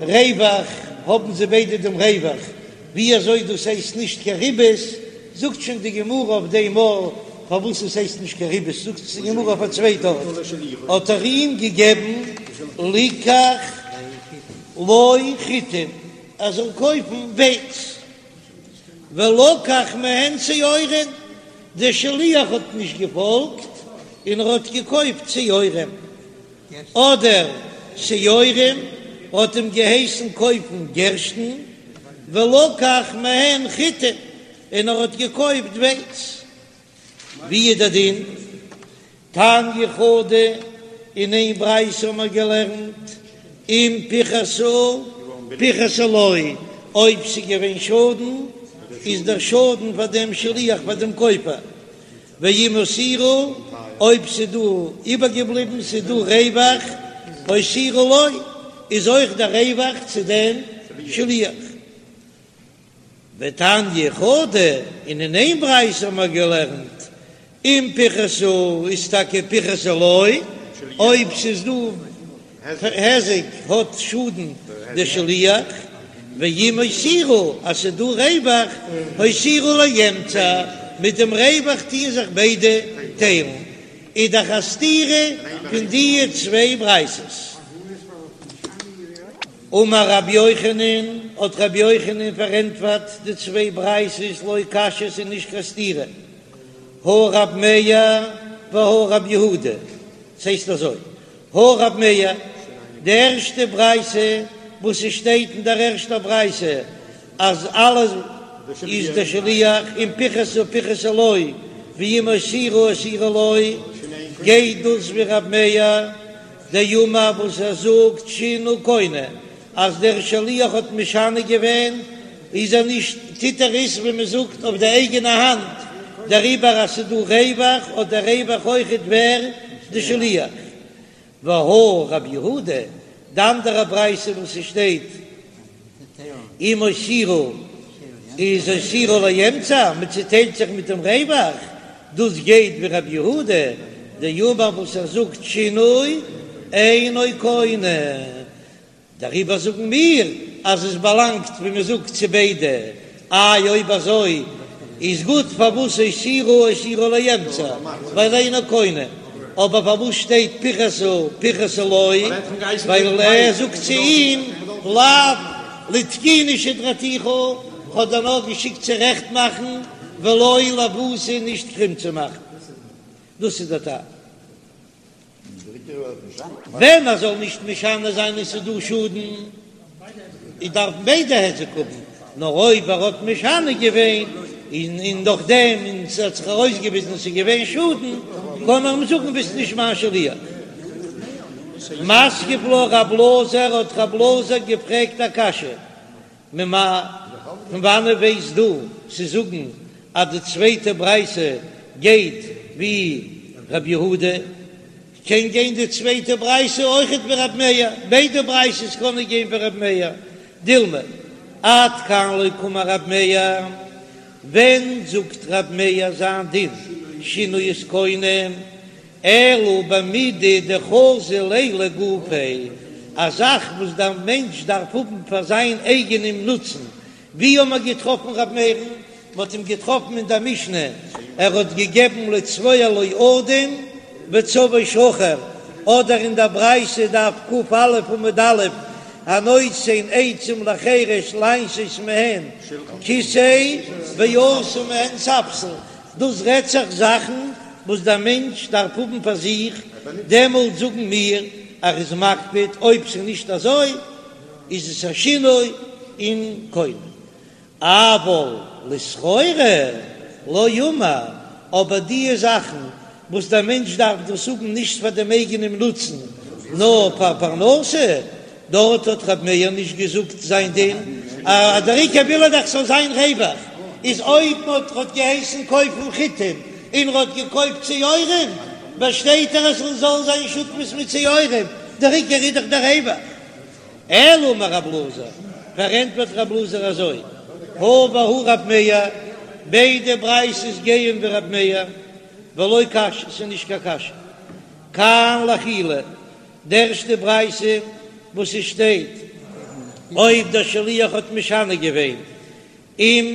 רווח האבן זיי ביידע דעם רווח, ווי אזוי דאס הייסט נישט קיין ריבית? זאגט שוין די גמרא אויף דעם מאל פארוואס עס הייסט נישט קיין ריבית, זאגט עס די גמרא אויף א צווייטע ארט, האט ער אים געגעבן ליקח לו חיטים ער זאל קויפן ווייץ, ולקח מהן שעורים, דער שליח האט נישט געפאלגט און ער האט געקויפט שעורים. אדער שעורים האט אים געהייסן קויפן גערשטן, ולקח מהן חיטים, און ער האט געקויפט ווייץ. ווי איז דער דין? תניא חדא, אין איין ברייתא האבן מיר געלערנט, אם פיחתו פיחתו לו, אויב ס'איז געווען שאדן, איז דער שאדן פאר דעם שליח פאר דעם קויפער, ואם הותירו, אויב ס'איז דא איבערגעבליבן, ס'איז דא רווח, הותירו לו, איז אויך דער רווח צו דעם שליח. ותניא חדא, און אין איין ברייתא האבן מיר געלערנט, אם פיחתו איז טאקע פיחתו לו, אויב ס'איז דא היזק האט שאדן די שליח, ואם הותירו אז ס'איז דא רווח, הותירו לאמצע, מיט דעם רווח טוען זיך ביידע טיילן, איז דאך א סתירה פון די צוויי ברייתות. אמר רבי יוחנן, האט רבי יוחנן פארענטפערט די צוויי ברייתות לא קשיא ס'איז נישט קיין סתירה, הא רב מאיר והא רב יהודה, ס'הייסט אזוי, הא רב מאיר, די ערשטע ברייתא וואס עס שטייט אין דער ערשטער ברייתא אז אלעס איז דער שליח אם פיחתו פיחתו לו ואם הותירו הותירו לו, גייט דאס ווי רב מאיר דאמר וואס ער זאגט שינוי קונה אז דער שליח האט משנה געווען איז ער נישט טוט ער עס ווי מען זאגט אויף די אייגענע האנט, דעריבער אז ס'איז דא רווח האט דער רווח אויכעט ווער? די שליח. והא רב יהודה, די אנדערע ברייתא וואס ס'שטייט אם הותירו איז הותירו לאמצע, מען צוטיילט זיך מיט דעם רווח, דאס גייט ווי רב יהודה דאמר וואס ער זאגט שינוי אינו קונה. דעריבער זאגן מיר אז עס באלאנגט ווי מען זאגט צו ביידע, איי אויב אזוי איז גוט פארוואס הותירו הותירו לאמצע ווייל אינו קונה, אבער פארוואס שטייט פיחתו פיחתו לו ווייל ער זאגט צו אים לאו לתקוני שדרתיך כ'האב דיר נאר געשיקט צו רעכט מאכן ולא לעוותי נישט קרום צו מאכן, דאס איז דער טעם. ווען ער זאל נישט משנה זיין און ס'איז דא שאדן, איז דארפן ביידע היזק האבן, נאר אויב ער האט משנה געווען און און נאכדעם און ס'האט זיך ארויסגעוויזן ס'איז געווען שאדן, קען מען אים זאגן ביסט נישט מיין שליח. מתקיף לה רב אלעזר האט רב אלעזר געפרעגט א קשיא, ממאי, פון וואנעט ווייסט דו צו זאגן אז די צווייטע ברייתא גייט ווי ר' יהודה? קען גיין די צווייטע ברייתא אויכעט ווי ר' מאיר, ביידע ברייתות קענען גיין ווי ר' מאיר, דילמא עד כאן לא קאמר ר' מאיר, ווען זאגט ר' מאיר זיין דין שינוי איז קונה? אלא במידי דחזי ליה לגופיה, א זאך וואס דער מענטש דארף האבן פאר זיין אייגענעם נוצן. ווי האט מען געטראפן ר' מאיר'ן? מען האט אים געטראפן אין דער משנה, ער האט געגעבן לצבוע לו אדום וצבעו שחור, אדער אין דער ברייתא דף ק"א עמוד א', הנותן עצים לחרש לעשות מהן כסא ועשה מהן ספסל, דאס רעדט זיך זאכן וואס דער מענטש דארף האבן פאר זיך, דעמאלט זאגן מיר אז ער איז מקפיד, אויב ס'איז נישט אזוי איז עס א שינוי און קונה. אבל לסחורה לא אמר, אבער דיע זאכן וואס דער מענטש דארף דאס האבן נישט פאר דעם אייגענעם נוצן נאר פאר פרנסה, דארט האט ר' מאיר נישט געזאגט זיין דין, אז דער עיקר וויל ער דאך ס'זאל זיין רווח, איז אויב מען האט געהייסן קויפן חיטים און ער האט געקויפט שעורים, באשטייט ער אז ס'זאל זיין שותפות מיט שעורים, דער עיקר איז דאך דער רווח. אלא אמר רב אלעזר, פארענטפערט רב אלעזר אזוי, הא והא רב מאיר, ביידע ברייתות גייען ווי רב מאיר, ולא קשיא, ס'איז נישט קיין קשיא, כאן לאכילה, די ערשטע ברייתא וואס עס שטייט אויב דער שליח האט משנה געווען אם.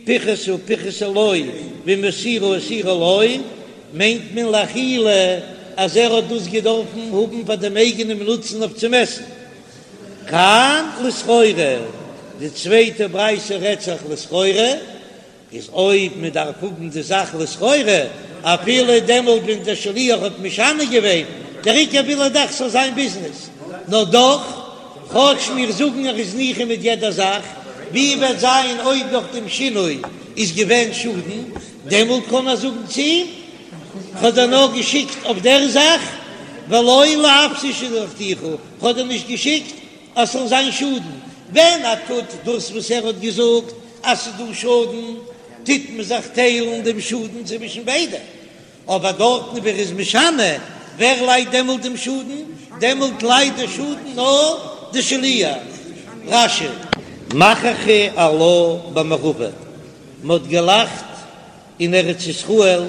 פיחתה פיחתה לו ואם הותירה הותירה לו, מיינט מען לאכילה אז ער האט דאס געדארפן האבן פאר דעם אייגענעם נוצן אויף צום עסן. כאן לסחורה, די צווייטע ברייתא רעדט זיך לסחורה, איז אויב מען דארף האבן די זאך לסחורה, אפילו דעמאלט ווען דער שליח האט משנה געווען, דער עיקר וויל ער דאך ס'זאל זיין ביזנעס, נאר דאך, כאטש מיר זאגן ער איז ניחא מיט יעדע זאך, ווי וועט זיין אויב נאך דעם שינוי איז געווען שאדן, דעמאלט קען ער זאגן צו אים, כ'האב דיר נאר געשיקט אויף דער זאך, ולא לאפסי שלחתיך, כ'האב דיר נישט געשיקט אז ס'זאל זיין שאדן, ווען ער טוט דאס וואס ער האט געזאגט אז ס'איז דא שאדן, טוט מען זיך טיילן דעם שאדן צווישן ביידע, אבער דארטן ווי ער איז משנה, ווער ליידט דעמאלט דעם שאדן? דעמאלט ליידט די שאדן נאר די שליח. רש"י. מחכו עלה במערבא, מ'האט געלאכט אין ארץ ישראל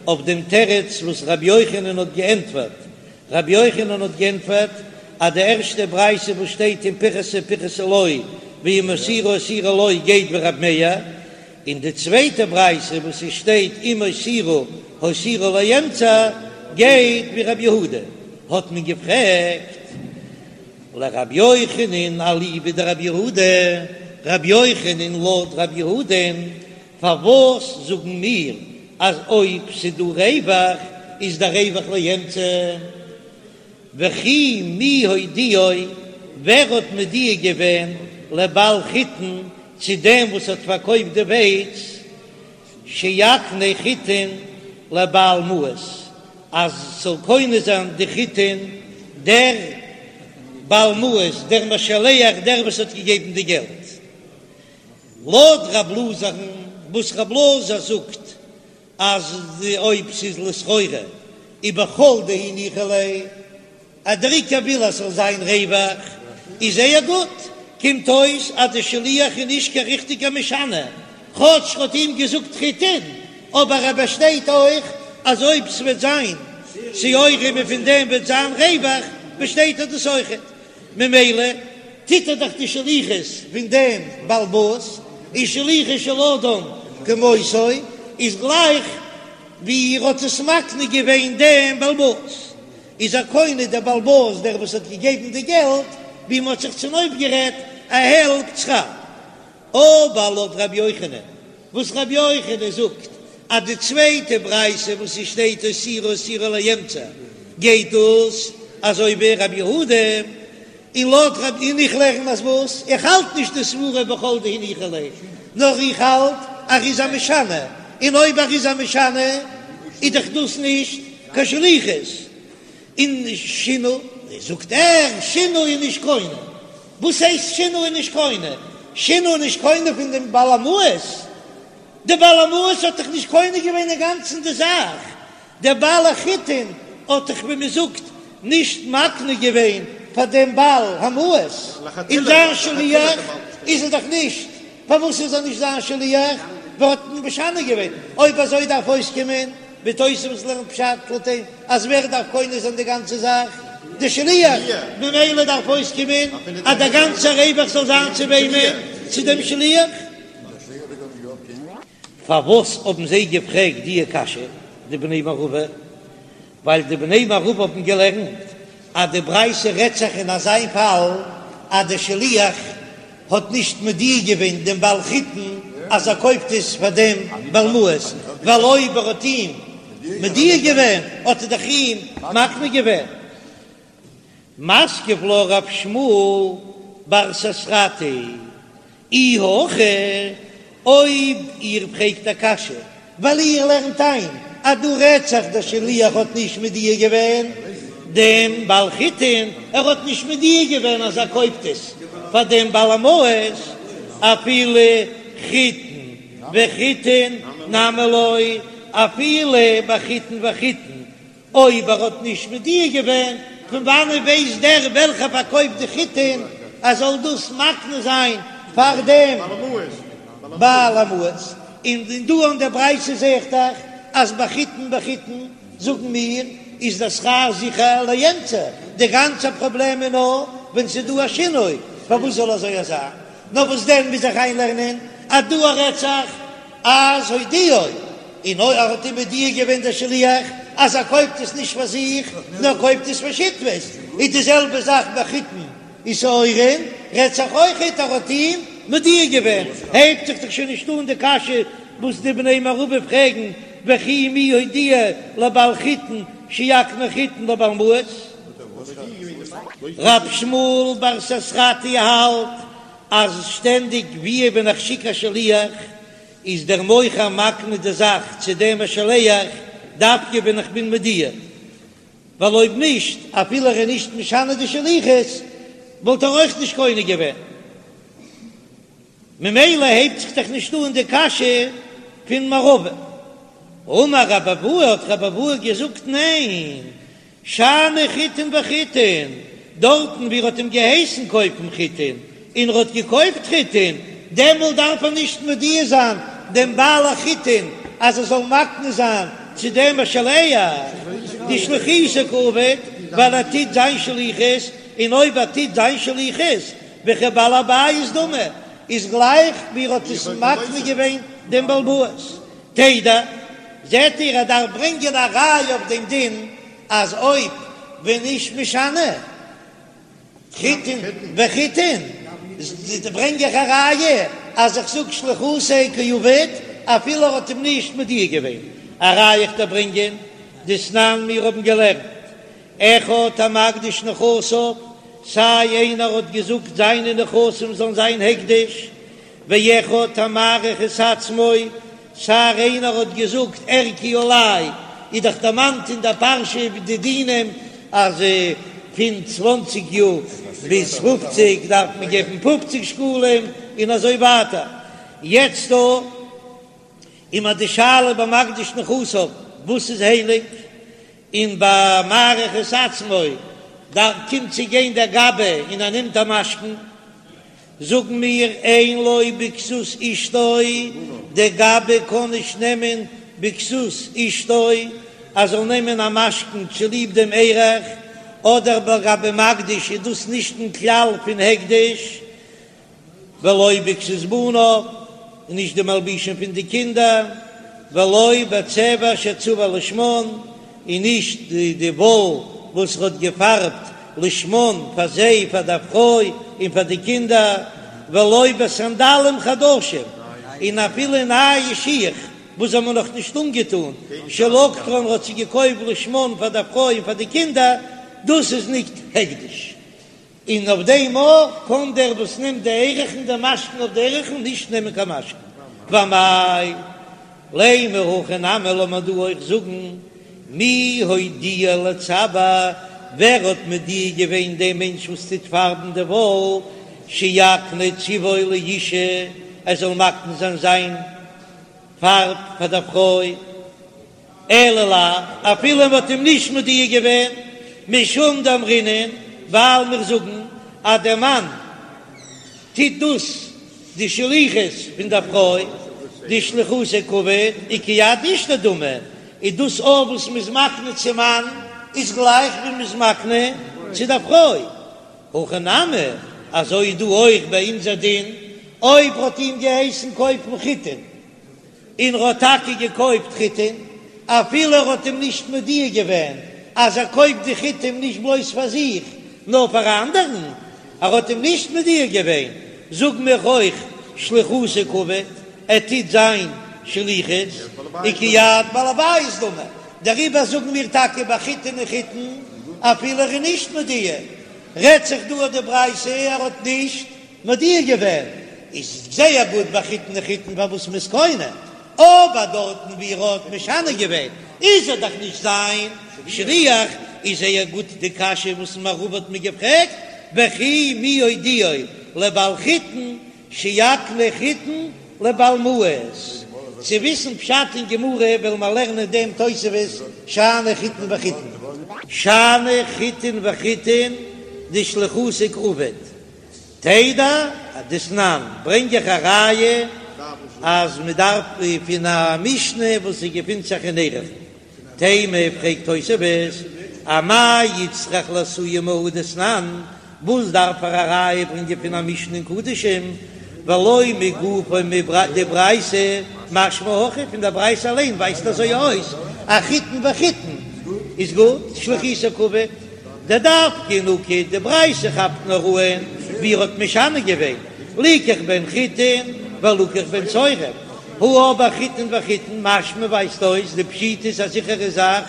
אויף דעם תירוץ וואס רבי יוחנן האט געענטפערט, רבי יוחנן האט גענטפערט אז די ערשטע ברייתא וואס שטייט אם פיחתה פיחתה לו ואם הותירה הותירה לו גייט ווי רבי מאיר, און די צווייטע ברייתא וואס עס שטייט אם הותירה הותירה לאמצע גייט ווי רבי יהודה, האט מען געפרעגט לרבי יוחנן אליבא דרבי יהודה, רבי יוחנן לויט רבי יהודה'ן פארוואס זאגן מיר אז אויב ס'דא רווח איז דער רווח לאמצע? וכי מי הודיעו, ווער האט מודיע געווען לבעל חיטין צו דעם וואס האט פארקויפט די ווייץ, שיקנה חיטין לבעל מעות, אז ס'זאל קונה זיין די חיטין דער בעל מעות, דער משלח, דער וואס האט געגעבן די געלט. לויט רב אלעזר'ן וואס רב אלעזר זאגט אז אויב ס'איז לסחורה ובכל דהו ניחא ליה, אז דער עיקר וויל אז ס'זאל זיין רווח, איז זייער גוט, קומט אויס אז די שליח איז נישט קיין ריכטיגער משנה, כאטש ר'האט אים געזאגט חיטין, אבער ער באשטייט אויך אז אויב ס'וועט זיין שעורים און פון דעם וועט זיין רווח, באשטייט ער דאס אויכעט. ממילא טוט ער דאך די שליחות פון דעם בעל הבית, און שלוחו של אדם כמותו איז גלייך ווי ער האט עס מקנה געווען דעם בעל הבית, איז ער קונה דער בעל הבית דער וואס האט געגעבן די געלט, ווי מען האט זיך צונויפגערעדט א העלפט שכר. אבער לויט רבי יוחנן, וואס רבי יוחנן זאגט אז די צווייטע ברייתא וואס עס שטייט הותירה הותירה לאמצע גייט דאס אזוי ווי רבי יהודה, און לויט רבי און איך לערן אז וואס? איך האלט נישט די סברה בכל דהו ניחא ליה, נאר איך האלט אז ער איז א משנה, און אויב ער איז א משנה איז דאך דאס נישט קיין שליחות. און שינה, זאגט ער, שינה איז נישט קונה. וואס הייסט שינה איז נישט קונה? שינה איז נישט קונה פון דעם בעל המעות. דער בעל המעות האט דאך נישט קונה געווען אינגאנצן די זאך. דער בעל החיטין האט דאך ווי מען זאגט נישט מקנה געווען פאר דעם בעל המעות. און זיין שליח איז ער דאך נישט. פארוואס איז ער נישט זיין שליח? ווייל ער האט משנה געווען. אויב אזוי דארף אויסקומען ווי תוספות לערנט פשט לויט אים אז ווער דארף קונה זיין די גאנצע זאך? די שליח, ממילא דארף אויסקומען אז דער גאנצער רווח זאל זיין צו וועמען? צו דעם שליח. פארוואס האבן זיי געפרעגט דיע קשיא די בני מערבא? ווייל די בני מערבא האבן געלערנט אז די ברייתא רעדט זיך אין אזא פאל אז די שליח האט נישט מודיע געווען דעם בעל חיטין אז ער קויפט עס פאר דעם בעל מעות, ווייל אויב ער האט אים מודיע געווען האט ער דאך אים מקנה געווען. מתקיף לה רב שמואל בר ססרטי, אי הכי, אויב איר פרעגט א קשיא ווייל איר לערנט איין אז דא רעדט זיך דער שליח האט נישט מודיע געווען דעם בעל חיטין, ער האט נישט מודיע געווען אז ער קויפט עס פאר דעם בעל המעות, אפילו חיטין וחיטין נמי לא, אפילו ביי חיטין וחיטין אויב ער האט נישט מודיע געווען, פון וואנען ווייסט דער וועלכער פארקויפט די חיטין אז זאל דאס מקנה זיין פאר דעם בעל המעות? און דא אין דער ברייתא זע איך דאך אז ביי חיטין וחיטין זאגן מיר איז דער שכר זיכער לאמצע, די גאנצע פראבלעם איז נאר ווען ס'איז דא א שינוי, פארוואס זאל אזוי זיין? נאר וואס דען מוז איך איינלערנען אז דא רעדט זיך. אז הודיעו, און אויב ער האט אים מודיע געווען דער שליח אז ער קויפט עס נישט פאר זיך נאר קויפט עס פאר שותפות, איז די זעלבע זאך ביי חיטין ושעורין, רעדט זיך אויכעט ער האט אים מודיע געווען, הייבט זיך דאך שוין נישט אן די קשיא וואס די בני מערבא פרעגן וכי מי הודיעו לבעל חיטין שיקנה חיטין לבעל מעות. רב שמואל בר ססרטי האלט אז שטענדיג ווי ווען איך שיק א שליח איז דער מוכר מקנה די זאך צו דעם משלח דווקא ווען איך בין מודיע, ווייל אויב נישט אפילו ער איז נישט משנה די שליחות וואלט ער אויך נישט קונה געווען. ממילא הייבט זיך דאך נישט אן די קשיא פון מערבא. אמר רבי אבהו האט רבי אבהו געזאגט ניין, שאני חיטין וחיטין, דארטן ווי ער האט אים געהייסן קויפן חיטין און ער האט געקויפט חיטין, דעמאלט דארף ער נישט מודיע זיין דעם בעל החיטין אז ער זאל מקנה זיין צו דעם משלח דשליחותיה קא עביד, ווייל ער טוט זיין שליחות, און אויב ער טוט זיין שליחות וכבעל הבית דמי, איז גלייך ווי ער האט עס מקנה געווען דעם בעל הבית. תדע, זעט איר ער דארף ברענגען א ראיה אויף דעם דין אז אויב ווען נישט משנה חיטין וחיטין, ברענג איך א ראיה אז איך זאג שליחותיה קא עביד אפילו ער האט אים נישט מודיע געווען. א ראיה איך דארף ברענגען דתנן מיר האבן געלערנט אחד המקדיש נכסיו, סיי איינער האט געזאגט זיינע נכסים זאלן זיין הקדש, ואחד המעריך את עצמו, סיי איינער האט געזאגט ערכי עלי, איז דאך דערמאנט אין דער פרשה די דינים אז פון צוואנציג יאר ביז פופציג דארף מען געבן פופציג שקלים און אזוי ווייטער, יעצט דא איז מיר די שאלה ביי מקדיש נכסיו וואס איז הייליג, און ביי מעריך את עצמו דארט קומט צו גיין דער גבאי און ער נעמט א משכון, זאגן מיר אין לו בכסות אשתו, דער גבאי קען נישט נעמען בכסות אשתו ער זאל נעמען א משכון צוליב דעם ערך, אדער לגבי מקדיש איז דאס נישט אין כלל פון הקדש, ולא בכסות בניו, און נישט די מלבושים פון די קינדער, ולא בצבע שצבע לשמן, און נישט די וואל וואס ער האט געפארבט לשמן פאר זיי, פאר דער פרוי און פאר די קינדער, ולא בסנדלים חדשים, און אפילו נייע שיך וואס זיי האבן נאך נישט אנגעטאן, שלקטן האט זיי געקויפט לשמן פאר דער פרוי און פאר די קינדער, דאס איז נישט הקדש. און אויף דעם אויך קען דער וואס נעמט די ערכין די משכון אויף די ערכין נישט נעמען קיין משכון. ואמאי לימא הכא נמי לאמיר דא אויך זאגן מי הודיעו לצבע, ווער האט מודיע געווען דעם מענטש וואס טוט פארבן די וואל שיקנה צבעו לאשה ער זאל מקנה זיין זיין פארב פאר דער פרוי. אלא לאו, אפילו מען האט אים נישט מודיע געווען, משום דאמרינן, ווייל מיר זאגן אז דער מאן טוט דאס די שליחות פון דער פרוי, דשליחותיה קא עביד, וכיד אשתו דמי, איז דאס אויך וואס מען איז מקנה צום מאן איז גלייך ווי מען איז מקנה צו דער פרוי. הכא נמי, אזוי איז דא אויך ביי אונזער דין, אויב האט אים געהייסן קויפן חיטין, און ר'האט טאקע געקויפט חיטים, אפילו ער האט אים נישט מודיע געווען אז ער קויפט די חיטים נישט בלויז פאר זיך נאר פאר א אנדערן, ער האט אים נישט מודיע געווען, זאג מיר אויך שליחותיה קא עביד, ער טוט זיין שליחות, וכיד בעל הבית דמי, דעריבער זאגן מיר טאקע ביי חיטין און חיטין אפילו ער איז נישט מודיע, רעדט זיך דא אויף די ברייתא ער האט נישט מודיע געווען איז זייער גוט ביי חיטין און חיטין פארוואס מ'איז קונה, אבער דארטן ווי ער האט משנה געווען איז ער דאך נישט זיין שליח, איז זייער גוט די קשיא וואס מערבא האט מיר געפרעגט, וכי מי הודיעו לבעל חיטין שיקנה חיטין לבעל מעות, צו וויסן פשט אין גמרא וועלן מיר לערנען דעם תוספות שאני חיטין וחיטין. שאני חיטין וחיטין דשליחותיה קא עביד, תדע דתנן, ברענג איך א ראיה אז מען דארף פון א משנה וואס עס געפינט זיך אין ערכין. תימה פרעגט תוספות, אמאי איצטריך לאתויי מהא דתנן, וואס דארף ער א ראיה ברענגען פון א משנה אין קדשים, ולא מגופה דברייתא? משמע הכי פון דער ברייתא אליין ווייזט אזוי אויס אז חיטין וחיטין איז גוט, שליחותו קעביד, דדווקא נקט, די ברייתא כאפט נאר אן ווי ער האט משנה געווען, ליקח בהן חיטין ולקח בהן שעורים, הא אבער חיטין וחיטין משמע ווייזט אויס דפשיטא איז א זיכערע זאך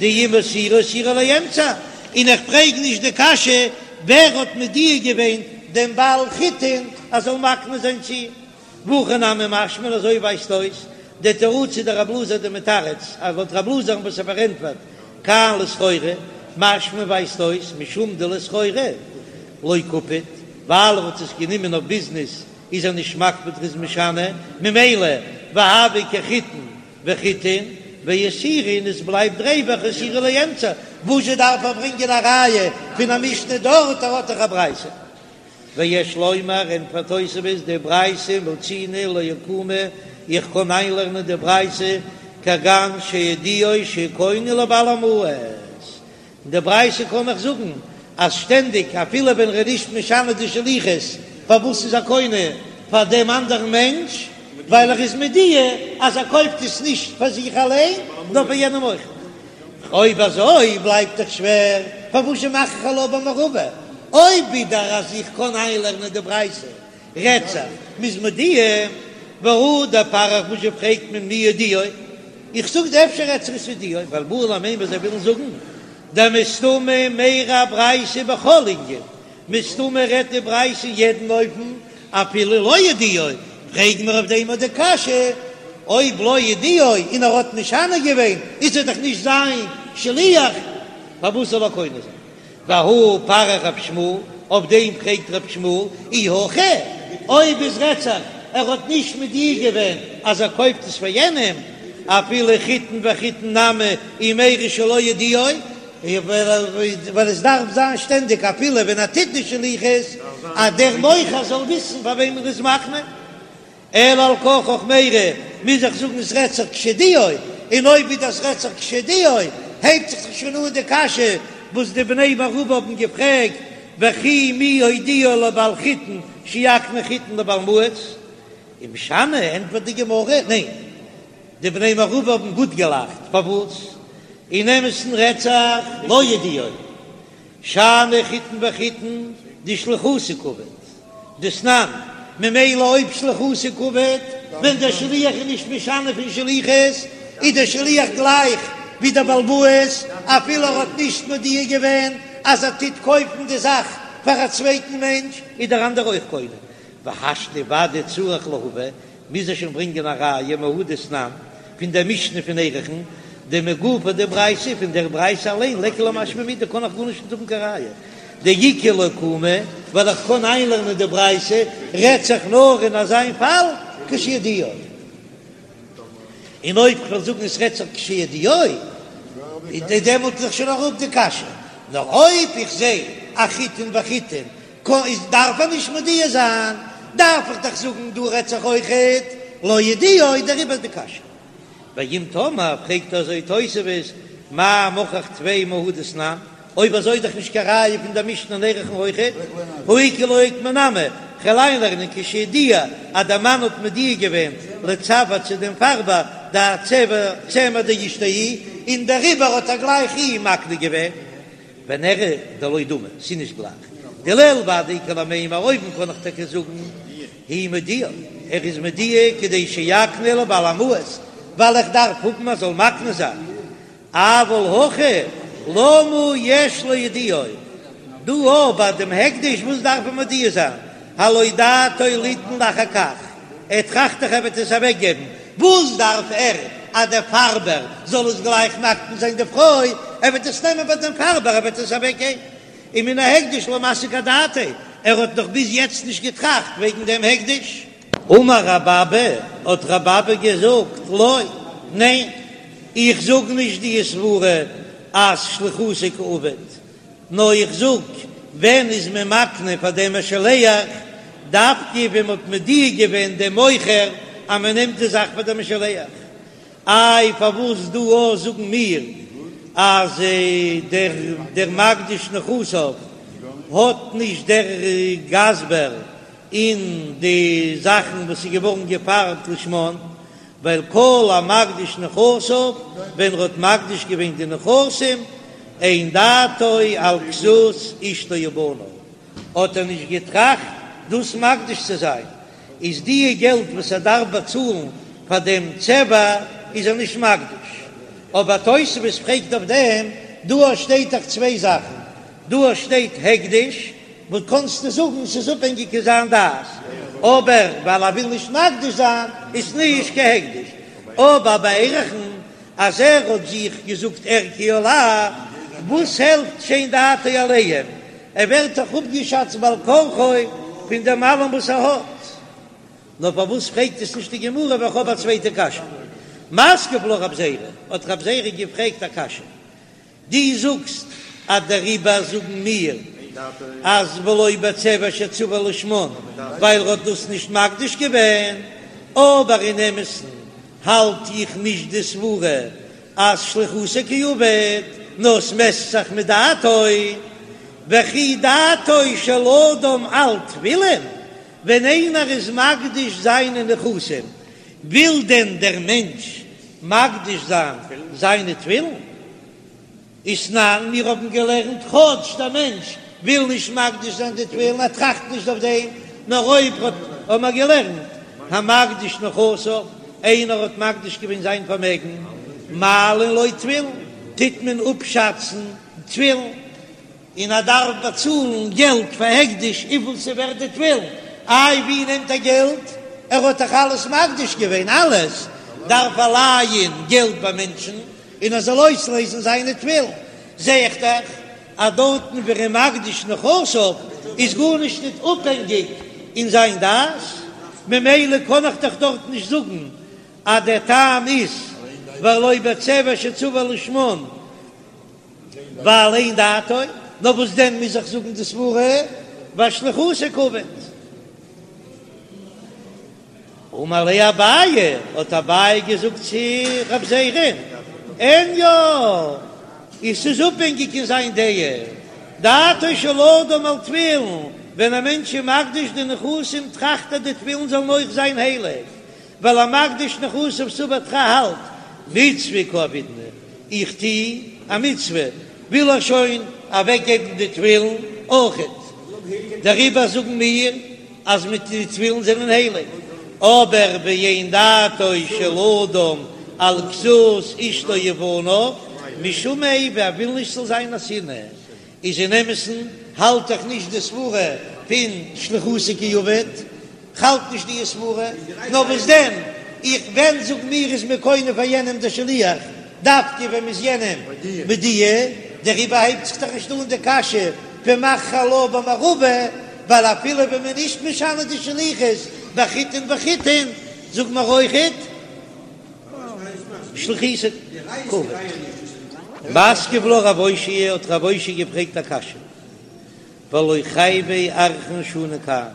דאם הותירו הותירו לאמצע, און איך פרעג נישט די קשיא ווער האט מודיע געווען דעם בעל חיטין אז זאל מקנה זיין צו אים. והכי נמי משמע אזוי ווייזט אויס דתרוצא דרב אלעזר דמתרץ אז לויט רב אלעזר'ן וואס ער פארענטפערט כאן לסחורה משמע ווייזט אויס משום דלסחורה לא קפיד ווייל ער האט עס גענומען אויף ביזנעס איז ער נישט מקפיד ר'איז משנה ממילא והוה כחיטין וחיטין והותירו און עס בלייבט ריווח הותירו לאמצע וואזשע דארף ער ברענגען א ראיה פון א משנה דארט ער האט דאך א ברייתא. ויש לומר, ענטפערט תוספות, דברייתא מצינו לאוקמי, איך קען איינלערנען די ברייתא כגון שהודיעו שקונה לבעל המעות, אין די ברייתא קען איך זאגן אז שטענדיג אפילו ווען ער איז נישט משנה די שליחות, פארוואס איז ער קונה פאר דעם אנדערן מענטש? ווייל ער איז מודיע אז ער קויפט עס נישט פאר זיך אליין נאר פאר יענעם אויך. אויב אזוי בלייבט דאך שווער, פארוואס מאך איך עלה במערבא? אויב ווידער אז איך קען איינלערנען די ברייתא רעדט זיך מ'איז מודיע, והא דפריך וואס זשע פרעגט מען מי הודיעו? איך זאג דיר אפשר רעדט זיך עס הודיעו, ווייל בעי למימר זיי ווילן זאגן דמסתמא מיירי ברייתא בכל ענין, מסתמא רעדט די ברייתא אין יעדן אופן אפילו לא הודיעו, פרעג מיר אויף דעם אט די קשיא, אויב לא הודיעו און ער האט משנה געווען איז ער דאך נישט זיין שליח, פארוואס זאל ער קונה זיין? והא פריך רב שמואל, אויף דעם פרעגט רב שמואל, אי הכי, אויב עס רעדט זיך ער האט נישט מודיע געווען אז ער קויפט עס פאר יענעם, אפילו חיטין וחיטין נמי ומיירי שלא הודיעו, ווייל עס דארף זיין שטענדיג אפילו ווען ער טוט די שליחות אז דער מוכר זאל וויסן פאר וועם ער איז מקנה, אלא על כרחך מיירי מוז איך זאגן עס רעדט זיך כשהודיעו, און אויב ווי דאס רעדט זיך כשהודיעו הייבט זיך שוין אן די קשיא וואס די בני מערבא האבן געפרעגט וכי מי הודיעו לבעל חיטין שיקנה חיטין לבעל מעות, ומשני ענטפערט די גמרא ניין. די בני מערבא האבן גוט געלאכט, פארוואס? אין אמת'ן רעדט זיך לא הודיעו, שאני חיטין וחיטין דשליחותיה קעביד, דתנן, ממילא אויב שליחותיה קעביד, ווען דער שליח איז נישט משנה פון שליחות, איז דער שליח גלייך ווי דער בעל הבית, אפילו ער האט נישט מודיע געווען אז ער טוט קויפן די זאך פאר א צווייטן מענטש, איז דער אנדערער אויך קונה. והשתא ודאי צריך להביא, מוז ער שוין ברענגען א ראיה מהא דתנן פון דער משנה פון ערכין, דמגופה דברייתא, פון דער ברייתא אליין ליכא למשמע מידי קען איך גארנישט נישט האבן קיין ראיה, דאיכא לאוקמי, ווייל איך קען איינלערנען די ברייתא רעדט זיך נאר אין אזיין פאל כשהודיעו, און אויב כ'וועל זאגן עס רעדט זיך כשהודיעו, איז דעמאלט איז דאך שוין אראפ די קשיא, נאר אויב איך זע א חיטין וחיטין קא איז דארף ער נישט מודיע זיין, דארף איך דאך זאגן דא רעדט זיך אויכעט לא הודיעו, דעריבער איז די קשיא. ואם תאמר, פרעגט אזוי תוספות, מאי מוכח טפי מהא דתנן, אויב אזוי איז דאך נישט קיין ראיה פון דער משנה אין ערכין אויכעט, הא איכא לאוקמי נמי, כ'וועל איינלערנען כשהודיע אז דער מאן האט מודיע געווען לצבע צו דעם פארבער דהצבע צמר דאשתו הוא, און דעריבער האט ער גלייך אים מקנה געווען. ונראה דלא דמי, ס'איז נישט גלייך. דלעיל ודאי איכא למימר, אויבן קען איך טאקע זאגן הוא מודיע, ער איז מודיע כדי שיקנה לבעל המעות, ווייל איך דארף האבן ער זאל מקנה זיין, אבל הכא למה יש להודיעו, דא אבער ביי דעם הקדש וואס דארף ער מודיע זיין, הלא דעתו ליתן לאחר כך, ער טראכט דאך ער וועט עס אוועק געבן, וואס דארף ער אז דער פארבער זאל עס גלייך מקנה זיין די פרוי, ער וועט עס נעמען ביי דעם פארבער ער וועט עס אוועק געבן, ומן ההקדש לא מסיק אדעתיה, ער האט נאך ביז יעצט נישט געטראכט וועגן דעם הקדש. אמר רב אבא, האט רב אבא געזאגט, לא, ניין, איך זאג נישט די סברה אז שליחותיה קעביד, נאר איך זאג, ווען איז מען מקנה פאר דעם משלח, דווקא ווען מ'האט מודיע געווען דעם מוכר אז מען נעמט די זאך פאר דעם משלח. איי פארוואס דא אויך זאגן מיר אז דער דער מקדיש נכסיו האט נישט דער גזבר אין די זאכן וואס איז געווארן געפארבט לשמן? ווייל כל המקדיש נכסיו, ווען ער האט מקדיש געווען די נכסים, אין דעתו על כסות אשתו ובניו, האט ער נישט געטראכט דאס מקדיש צו זיין, איז די געלט וואס ער דארף באצאלן פאר דעם צבע איז ער נישט מקדיש. אבער תוספות פרעגט אויף דעם, דא שטייט דאך צוויי זאכן, דא שטייט הקדש, וואס קענסטו זאגן ס'איז אפהענגיק אין זיין דעת, אבער ווייל ער וויל נישט מקדיש זיין איז נישט קיין הקדש, אבער ביי ערכין אז ער האט זיך געזאגט ערכי עלי, וואס העלפט שאין דעתו עליהם, ער ווערט דאך אפגעשאצט בעל כרחו פון דעם אלעם וואס ער האט. נאר פארוואס פרעגט עס נישט די גמרא ווייל איך האב א צווייטע קשיא. מתקיף לה רב זירא, האט רב זירא געפרעגט א קשיא, דו זאגסט אז דעריבער זאגן מיר אז ולא בצבע שצבע לשמן ווייל ער האט דאס נישט מקדיש געווען, אבער אין אמת'ן האלט איך נישט די סברה אז שליחותיה קא עביד, נאר ס'מעסט זיך מיט דעתו, וכי דעתו של אדם על תפילין, ווען איינער איז מקדיש זיינע נכסים, וויל דען דער מענטש מקדיש זיין זיינע תפילין? ותנן, מיר האבן געלערנט, כאטש דער מענטש וויל נישט מקדיש זיין די תפילין, ער טראכט נישט אויף דעם, נאר אויב האט האבן מיר געלערנט, המקדיש נכסיו, איינער האט מקדיש געווען זיין פארמעגן, מעלין לו תפילין, טוט מען אפשאצן תפילין. און ער דארף באצאלן געלט פאר הקדש וויפיל ס'ווערט די תפילין, איי ווי נעמט ער געלט? ער האט דאך אלעס מקדיש געווען, אלעס דארף ער לייען געלט ביי מענטשן און ער זאל אויסלעזן זיינע תפילין, זע איך דאך אז דארטן ווי ער איז מקדיש נכסיו איז גארנישט ניט אפהענגיק אין זיין דעת, ממילא קען איך דאך דארט נישט זאגן אז דער טעם איז ולא בצבע שצבע לשמן. ווייל אין דעתו, נאר וואס דען מוז איך זאגן די סברה ואשליחותיה קעביד. אמר ליה אביי, האט אביי געזאגט צו רב זירא'ן, אין יא, עס איז אפהענגיק אין זיין דעה, דעתו של אדם על תפילין, ווען א מענטש איז מקדיש די נכסים טראכט ער די תפילין זאלן אויך זיין הייליג, ווייל המקדיש נכסיו סבר ער האלט מצוה קא עבידנא, איך טו א מצוה, וויל ער שוין אוועק געבן די תפילין אויכעט, דעריבער זאגן מיר אז מיט די תפילין זענען הייליג, אבער ואין דעתו של אדם על כסות אשתו ובניו משום איבה, ער וויל נישט ס'זאל זיין א שנאה, איז אין אמת'ן האלט איך נישט די סברה פון שליחותיה קא עביד, כ'האלט נישט די סברה, נאר וואס דען, איך ווען זאג מיר איז מען קונה פאר יענעם דער שליח, דווקא ווען מ'איז יענעם מודיע, דעריבער הייבט זיך דאך נישט אן די קשיא פון מחכו לה במערבא, ווייל אפילו ווען מ'איז נישט משנה די שליחות בחיטין וחיטין, זאג מיר אויכעט שליחותיה קא עביד. מתקיף לה רב אושעיא האט רב אושעיא געפרעגט א קשיא, והלא חייבי ערכין שנו כאן,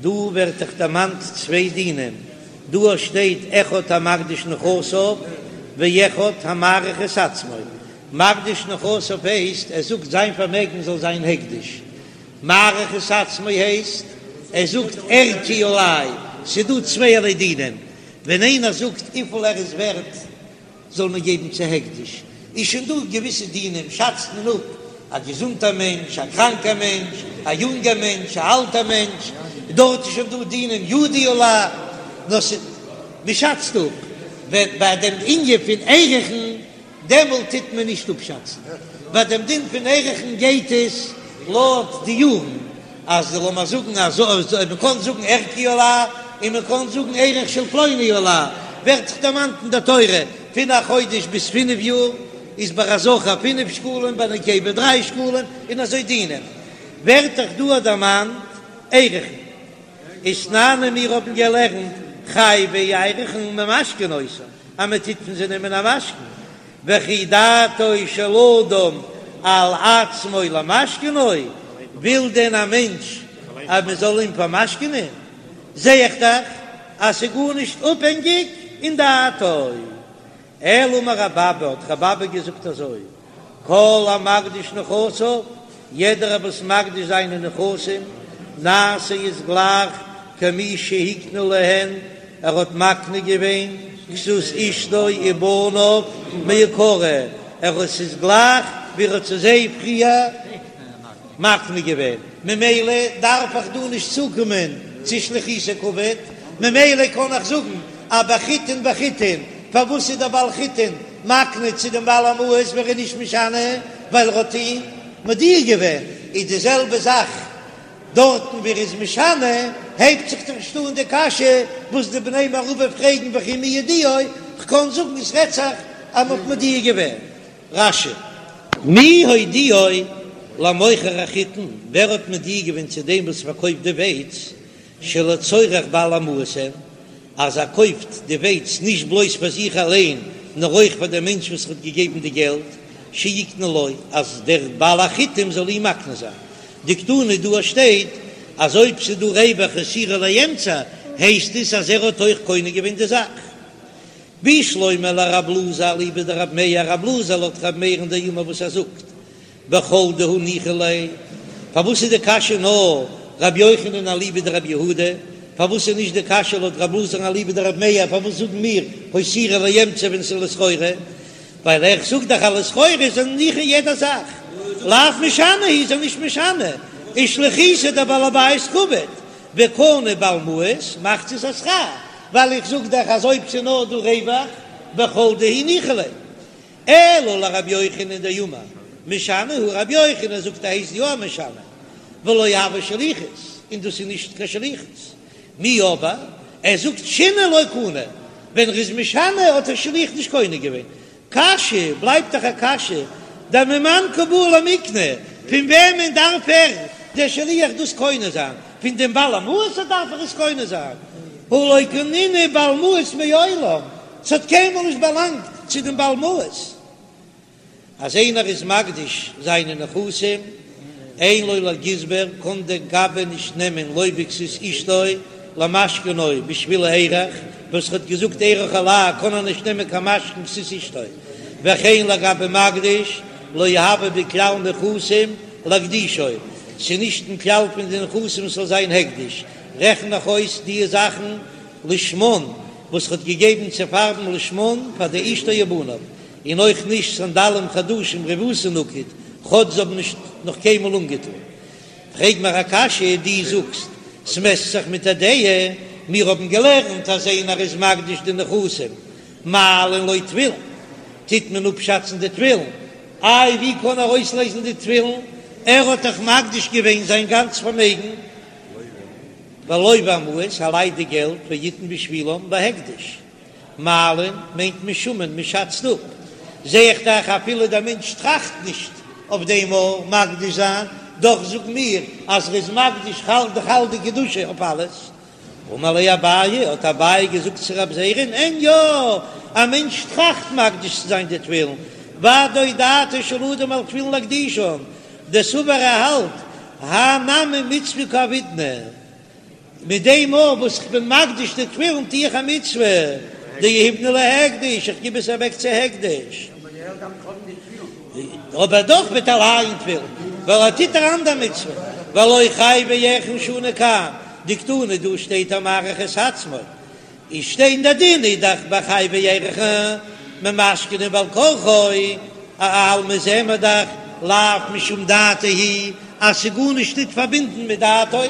דא ווערט דאך דערמאנט צוויי דינים, דא שטייט אחד המקדיש נכסיו ואחד המעריך את עצמו, מקדיש נכסיו הייסט ער זאגט זיין פארמעגן זאל זיין הקדש, מעריך את עצמו הייסט ער זאגט ערכי עלי, ס'דא צווייערליי דינים, ווען איינער זאגט וויפיל ער איז ווערט זאל מען געבן צו הקדש, איז שוין דא געוויסע דינים, שאצט מען אפ א געזונטער מענטש, א קראנקער מענטש, א יונגער מענטש, א אלטער מענטש, דארט איז שוין דא דינים ידי עלי, נאר ס'איז מ'שאצט אפ, ווען ביי דעם ענין פון ערכין דעמאלט טוט מען נישט אפשאצן, ביי דעם דין פון ערכין גייט עס לויט די יארן, אז לאמיר זאגן אז מען קען זאגן ערכי עלי און מען קען זאגן ערך של פלוני עלי, ווערט דאך דערמאנט אין דער תורה פון א חודש ביז פינף יאר איז ביי א זכר פינף שקלים ביי נקבה דריי שקלים און אזוי דינים ווערט דאך דא דערמאנט ערכין. ותנן און מיר האבן געלערנט חייבי ערכין ממשכנין אותן אז מען טוט פון זיי נעמען א משכון, וכי דעתו של אדם על עצמו למשכנו, וויל דען א מענטש אז מען זאל אים פארמשכנען? זע איך דאך אז ס'איז גארנישט אפהענגיק אין דעתו. אלא אמר רב אבא, האט רב אבא געזאגט אזוי, כל המקדיש נכסיו, יעדער וואס מקדיש זיינע נכסים, נעשה איז גלייך כמי שהקנה להן. ער האט מקנה געווען כסות אשתו ובניו מעיקרא, ער האט ס'איז גלייך ווי ער האט צו זיי פריער מקנה געווען, ממילא דארף איך דא נישט צוקומען צו שליחותו קעביד, ממילא קען איך זאגן אז ביי חיטין בחיטין, פארוואס איז דער בעל חיטין מקנה צו דעם בעל המעות ווען ער איז נישט משנה ווייל ער האט אים מודיע געווען, איז די זעלבע זאך דארטן ווי ער איז משנה, הייבט זיך דאך נישט אן די קשיא וואס די בני מערבא פרעגן וכי מי הודיעו, כ'קען זאגן עס רעדט זיך אז מ'האט מודיע געווען. רש"י. מי הודיעו למוכר החיטין, ווער האט מודיע געווען צו דעם וואס פארקויפט די ווייץ, שלצורך בעל המעות הן, אז ער קויפט די ווייץ נישט בלויז פאר זיך אליין, נאר אויך פאר דעם מענטש וואס האט געגעבן די געלט, שיקנה לו, אז דער בעל החיטים זאל אים מקנה זיין. דקתני דא שטייט אז אויב ס'איז דא רווח הותירו לאמצע, הייסט עס אז ער האט אויך קונה געווען די זאך. בשלמא לרב אלעזר אליבא דרב מאיר, רב אלעזר לויט רב מאיר'ן דאמר וואס ער זאגט בכל דהא ניחא ליה, פארוואס איז די קשיא נאר רבי יוחנן אליבא דרבי יהודה, פארוואס איז נישט די קשיא לויט רב אלעזר'ן אליבא דרב מאיר, פארוואס זאגן מיר הותירו לאמצע ווען ס'איז לסחורה, ווייל איך זאג דאך אז לסחורה איז ער ניחא יעדע זאך, לאו משנה הוא איז ער נישט משנה, ושליחותיה דבעל הבית קעביד, וקנה בעל מעות מחצית השכר, ווייל איך זאג דאך אז אויב ס'איז נאר דא רווח בכל דהו ניחא ליה. אלא לרבי יוחנן דאמר משנה הוא רבי יוחנן זאגט ער הייסט יא משנה ולא הוי שליחות און דאס איז נישט קיין שליחות מיהו אבער ער זאגט שינוי לא קנה ווען ער איז משנה האט דער שליח נישט קונה געווען קשיא בלייבט דאך א קשיא דממאן קא בעי למיקני פון וועמען דארף ער דער שליח דאס קונה זיין פון דעם בעל המעות דארף ער עס קונה זיין הא לא קנינהו בעל מעות מעולם ס'האט קיינמאל נישט באלאנגט צו דעם בעל מעות. אז איינער איז מקדיש זיינע נכסים, אין לו לגזבר, קען דער גבאי נישט נעמען לא בכסות אשתו למשכנו בשביל הארח, וואס ער האט געזאגט ערך עלי קען ער נישט נעמען קיין משכון כסות אשתו, וכן לגבי מקדיש לא הוי בכלל נכסים להקדישו, ס'איז נישט אין כלל פון די נכסים ס'זאל זיין הקדש, רעכן איך אויס די זאכן לשמן וואס ר'האט געגעבן צו פארבן לשמן פאר די אשתו ובניו, און אויך נישט סנדלים חדשים רבותא נקוט, כאטש זיי האבן נישט נאך קיינמאל אנגעטון. פרעג מיר א קשיא, דו זאגסט ס'מעסט זיך מיט א דעה, מיר האבן געלערנט אז איינער איז מקדיש די נכסים מעלין לו תפילין, טוט מען אפשאצן די תפילין, איי ווי קען ער אויסלעזן די תפילין, ער האט דאך מקדיש געווען זיין גאנץ פארמעגן. ולוה המעות, ער לייט די געלט ויתן בשבילם בהקדש. מעלין מיינט משומין, מען שאצט אפ. זע איך דאך אפילו דער מענטש טראכט נישט אויף דעם אויף מקדיש זיין, דאך זאגן מיר אז ער איז מקדיש חל די חל די קדושה אויף אלעס. אמר ליה אביי, האט אביי געזאגט צו רב זירא'ן, אין יא, א מענטש טראכט מקדיש צו זיין די תפילין, ודאי דעתו של אדם על תפילין להקדישן, דסבר ער האלט האי נמי מצוה קא עבידנא, מיט דעם אויך וואס איך בין מקדיש די תפילין טו איך א מצוה, דיהיבנא להקדש, איך גיב עס אוועק צו הקדש, אבער דאך וועט ער לייען תפילין, ווייל ער טוט אן אנדער מצוה, והלא חייבי ערכין שנו כאן, דקתני דא שטייט המעריך את עצמו, איז שטיין די דין איז דאך ביי חייבי ערכין ממשכנין בעל כרחו, אלמא זעען מיר דאך לאו משום דעתו היא אז ס'איז גארנישט ניט פארבינדן מיט דעתו.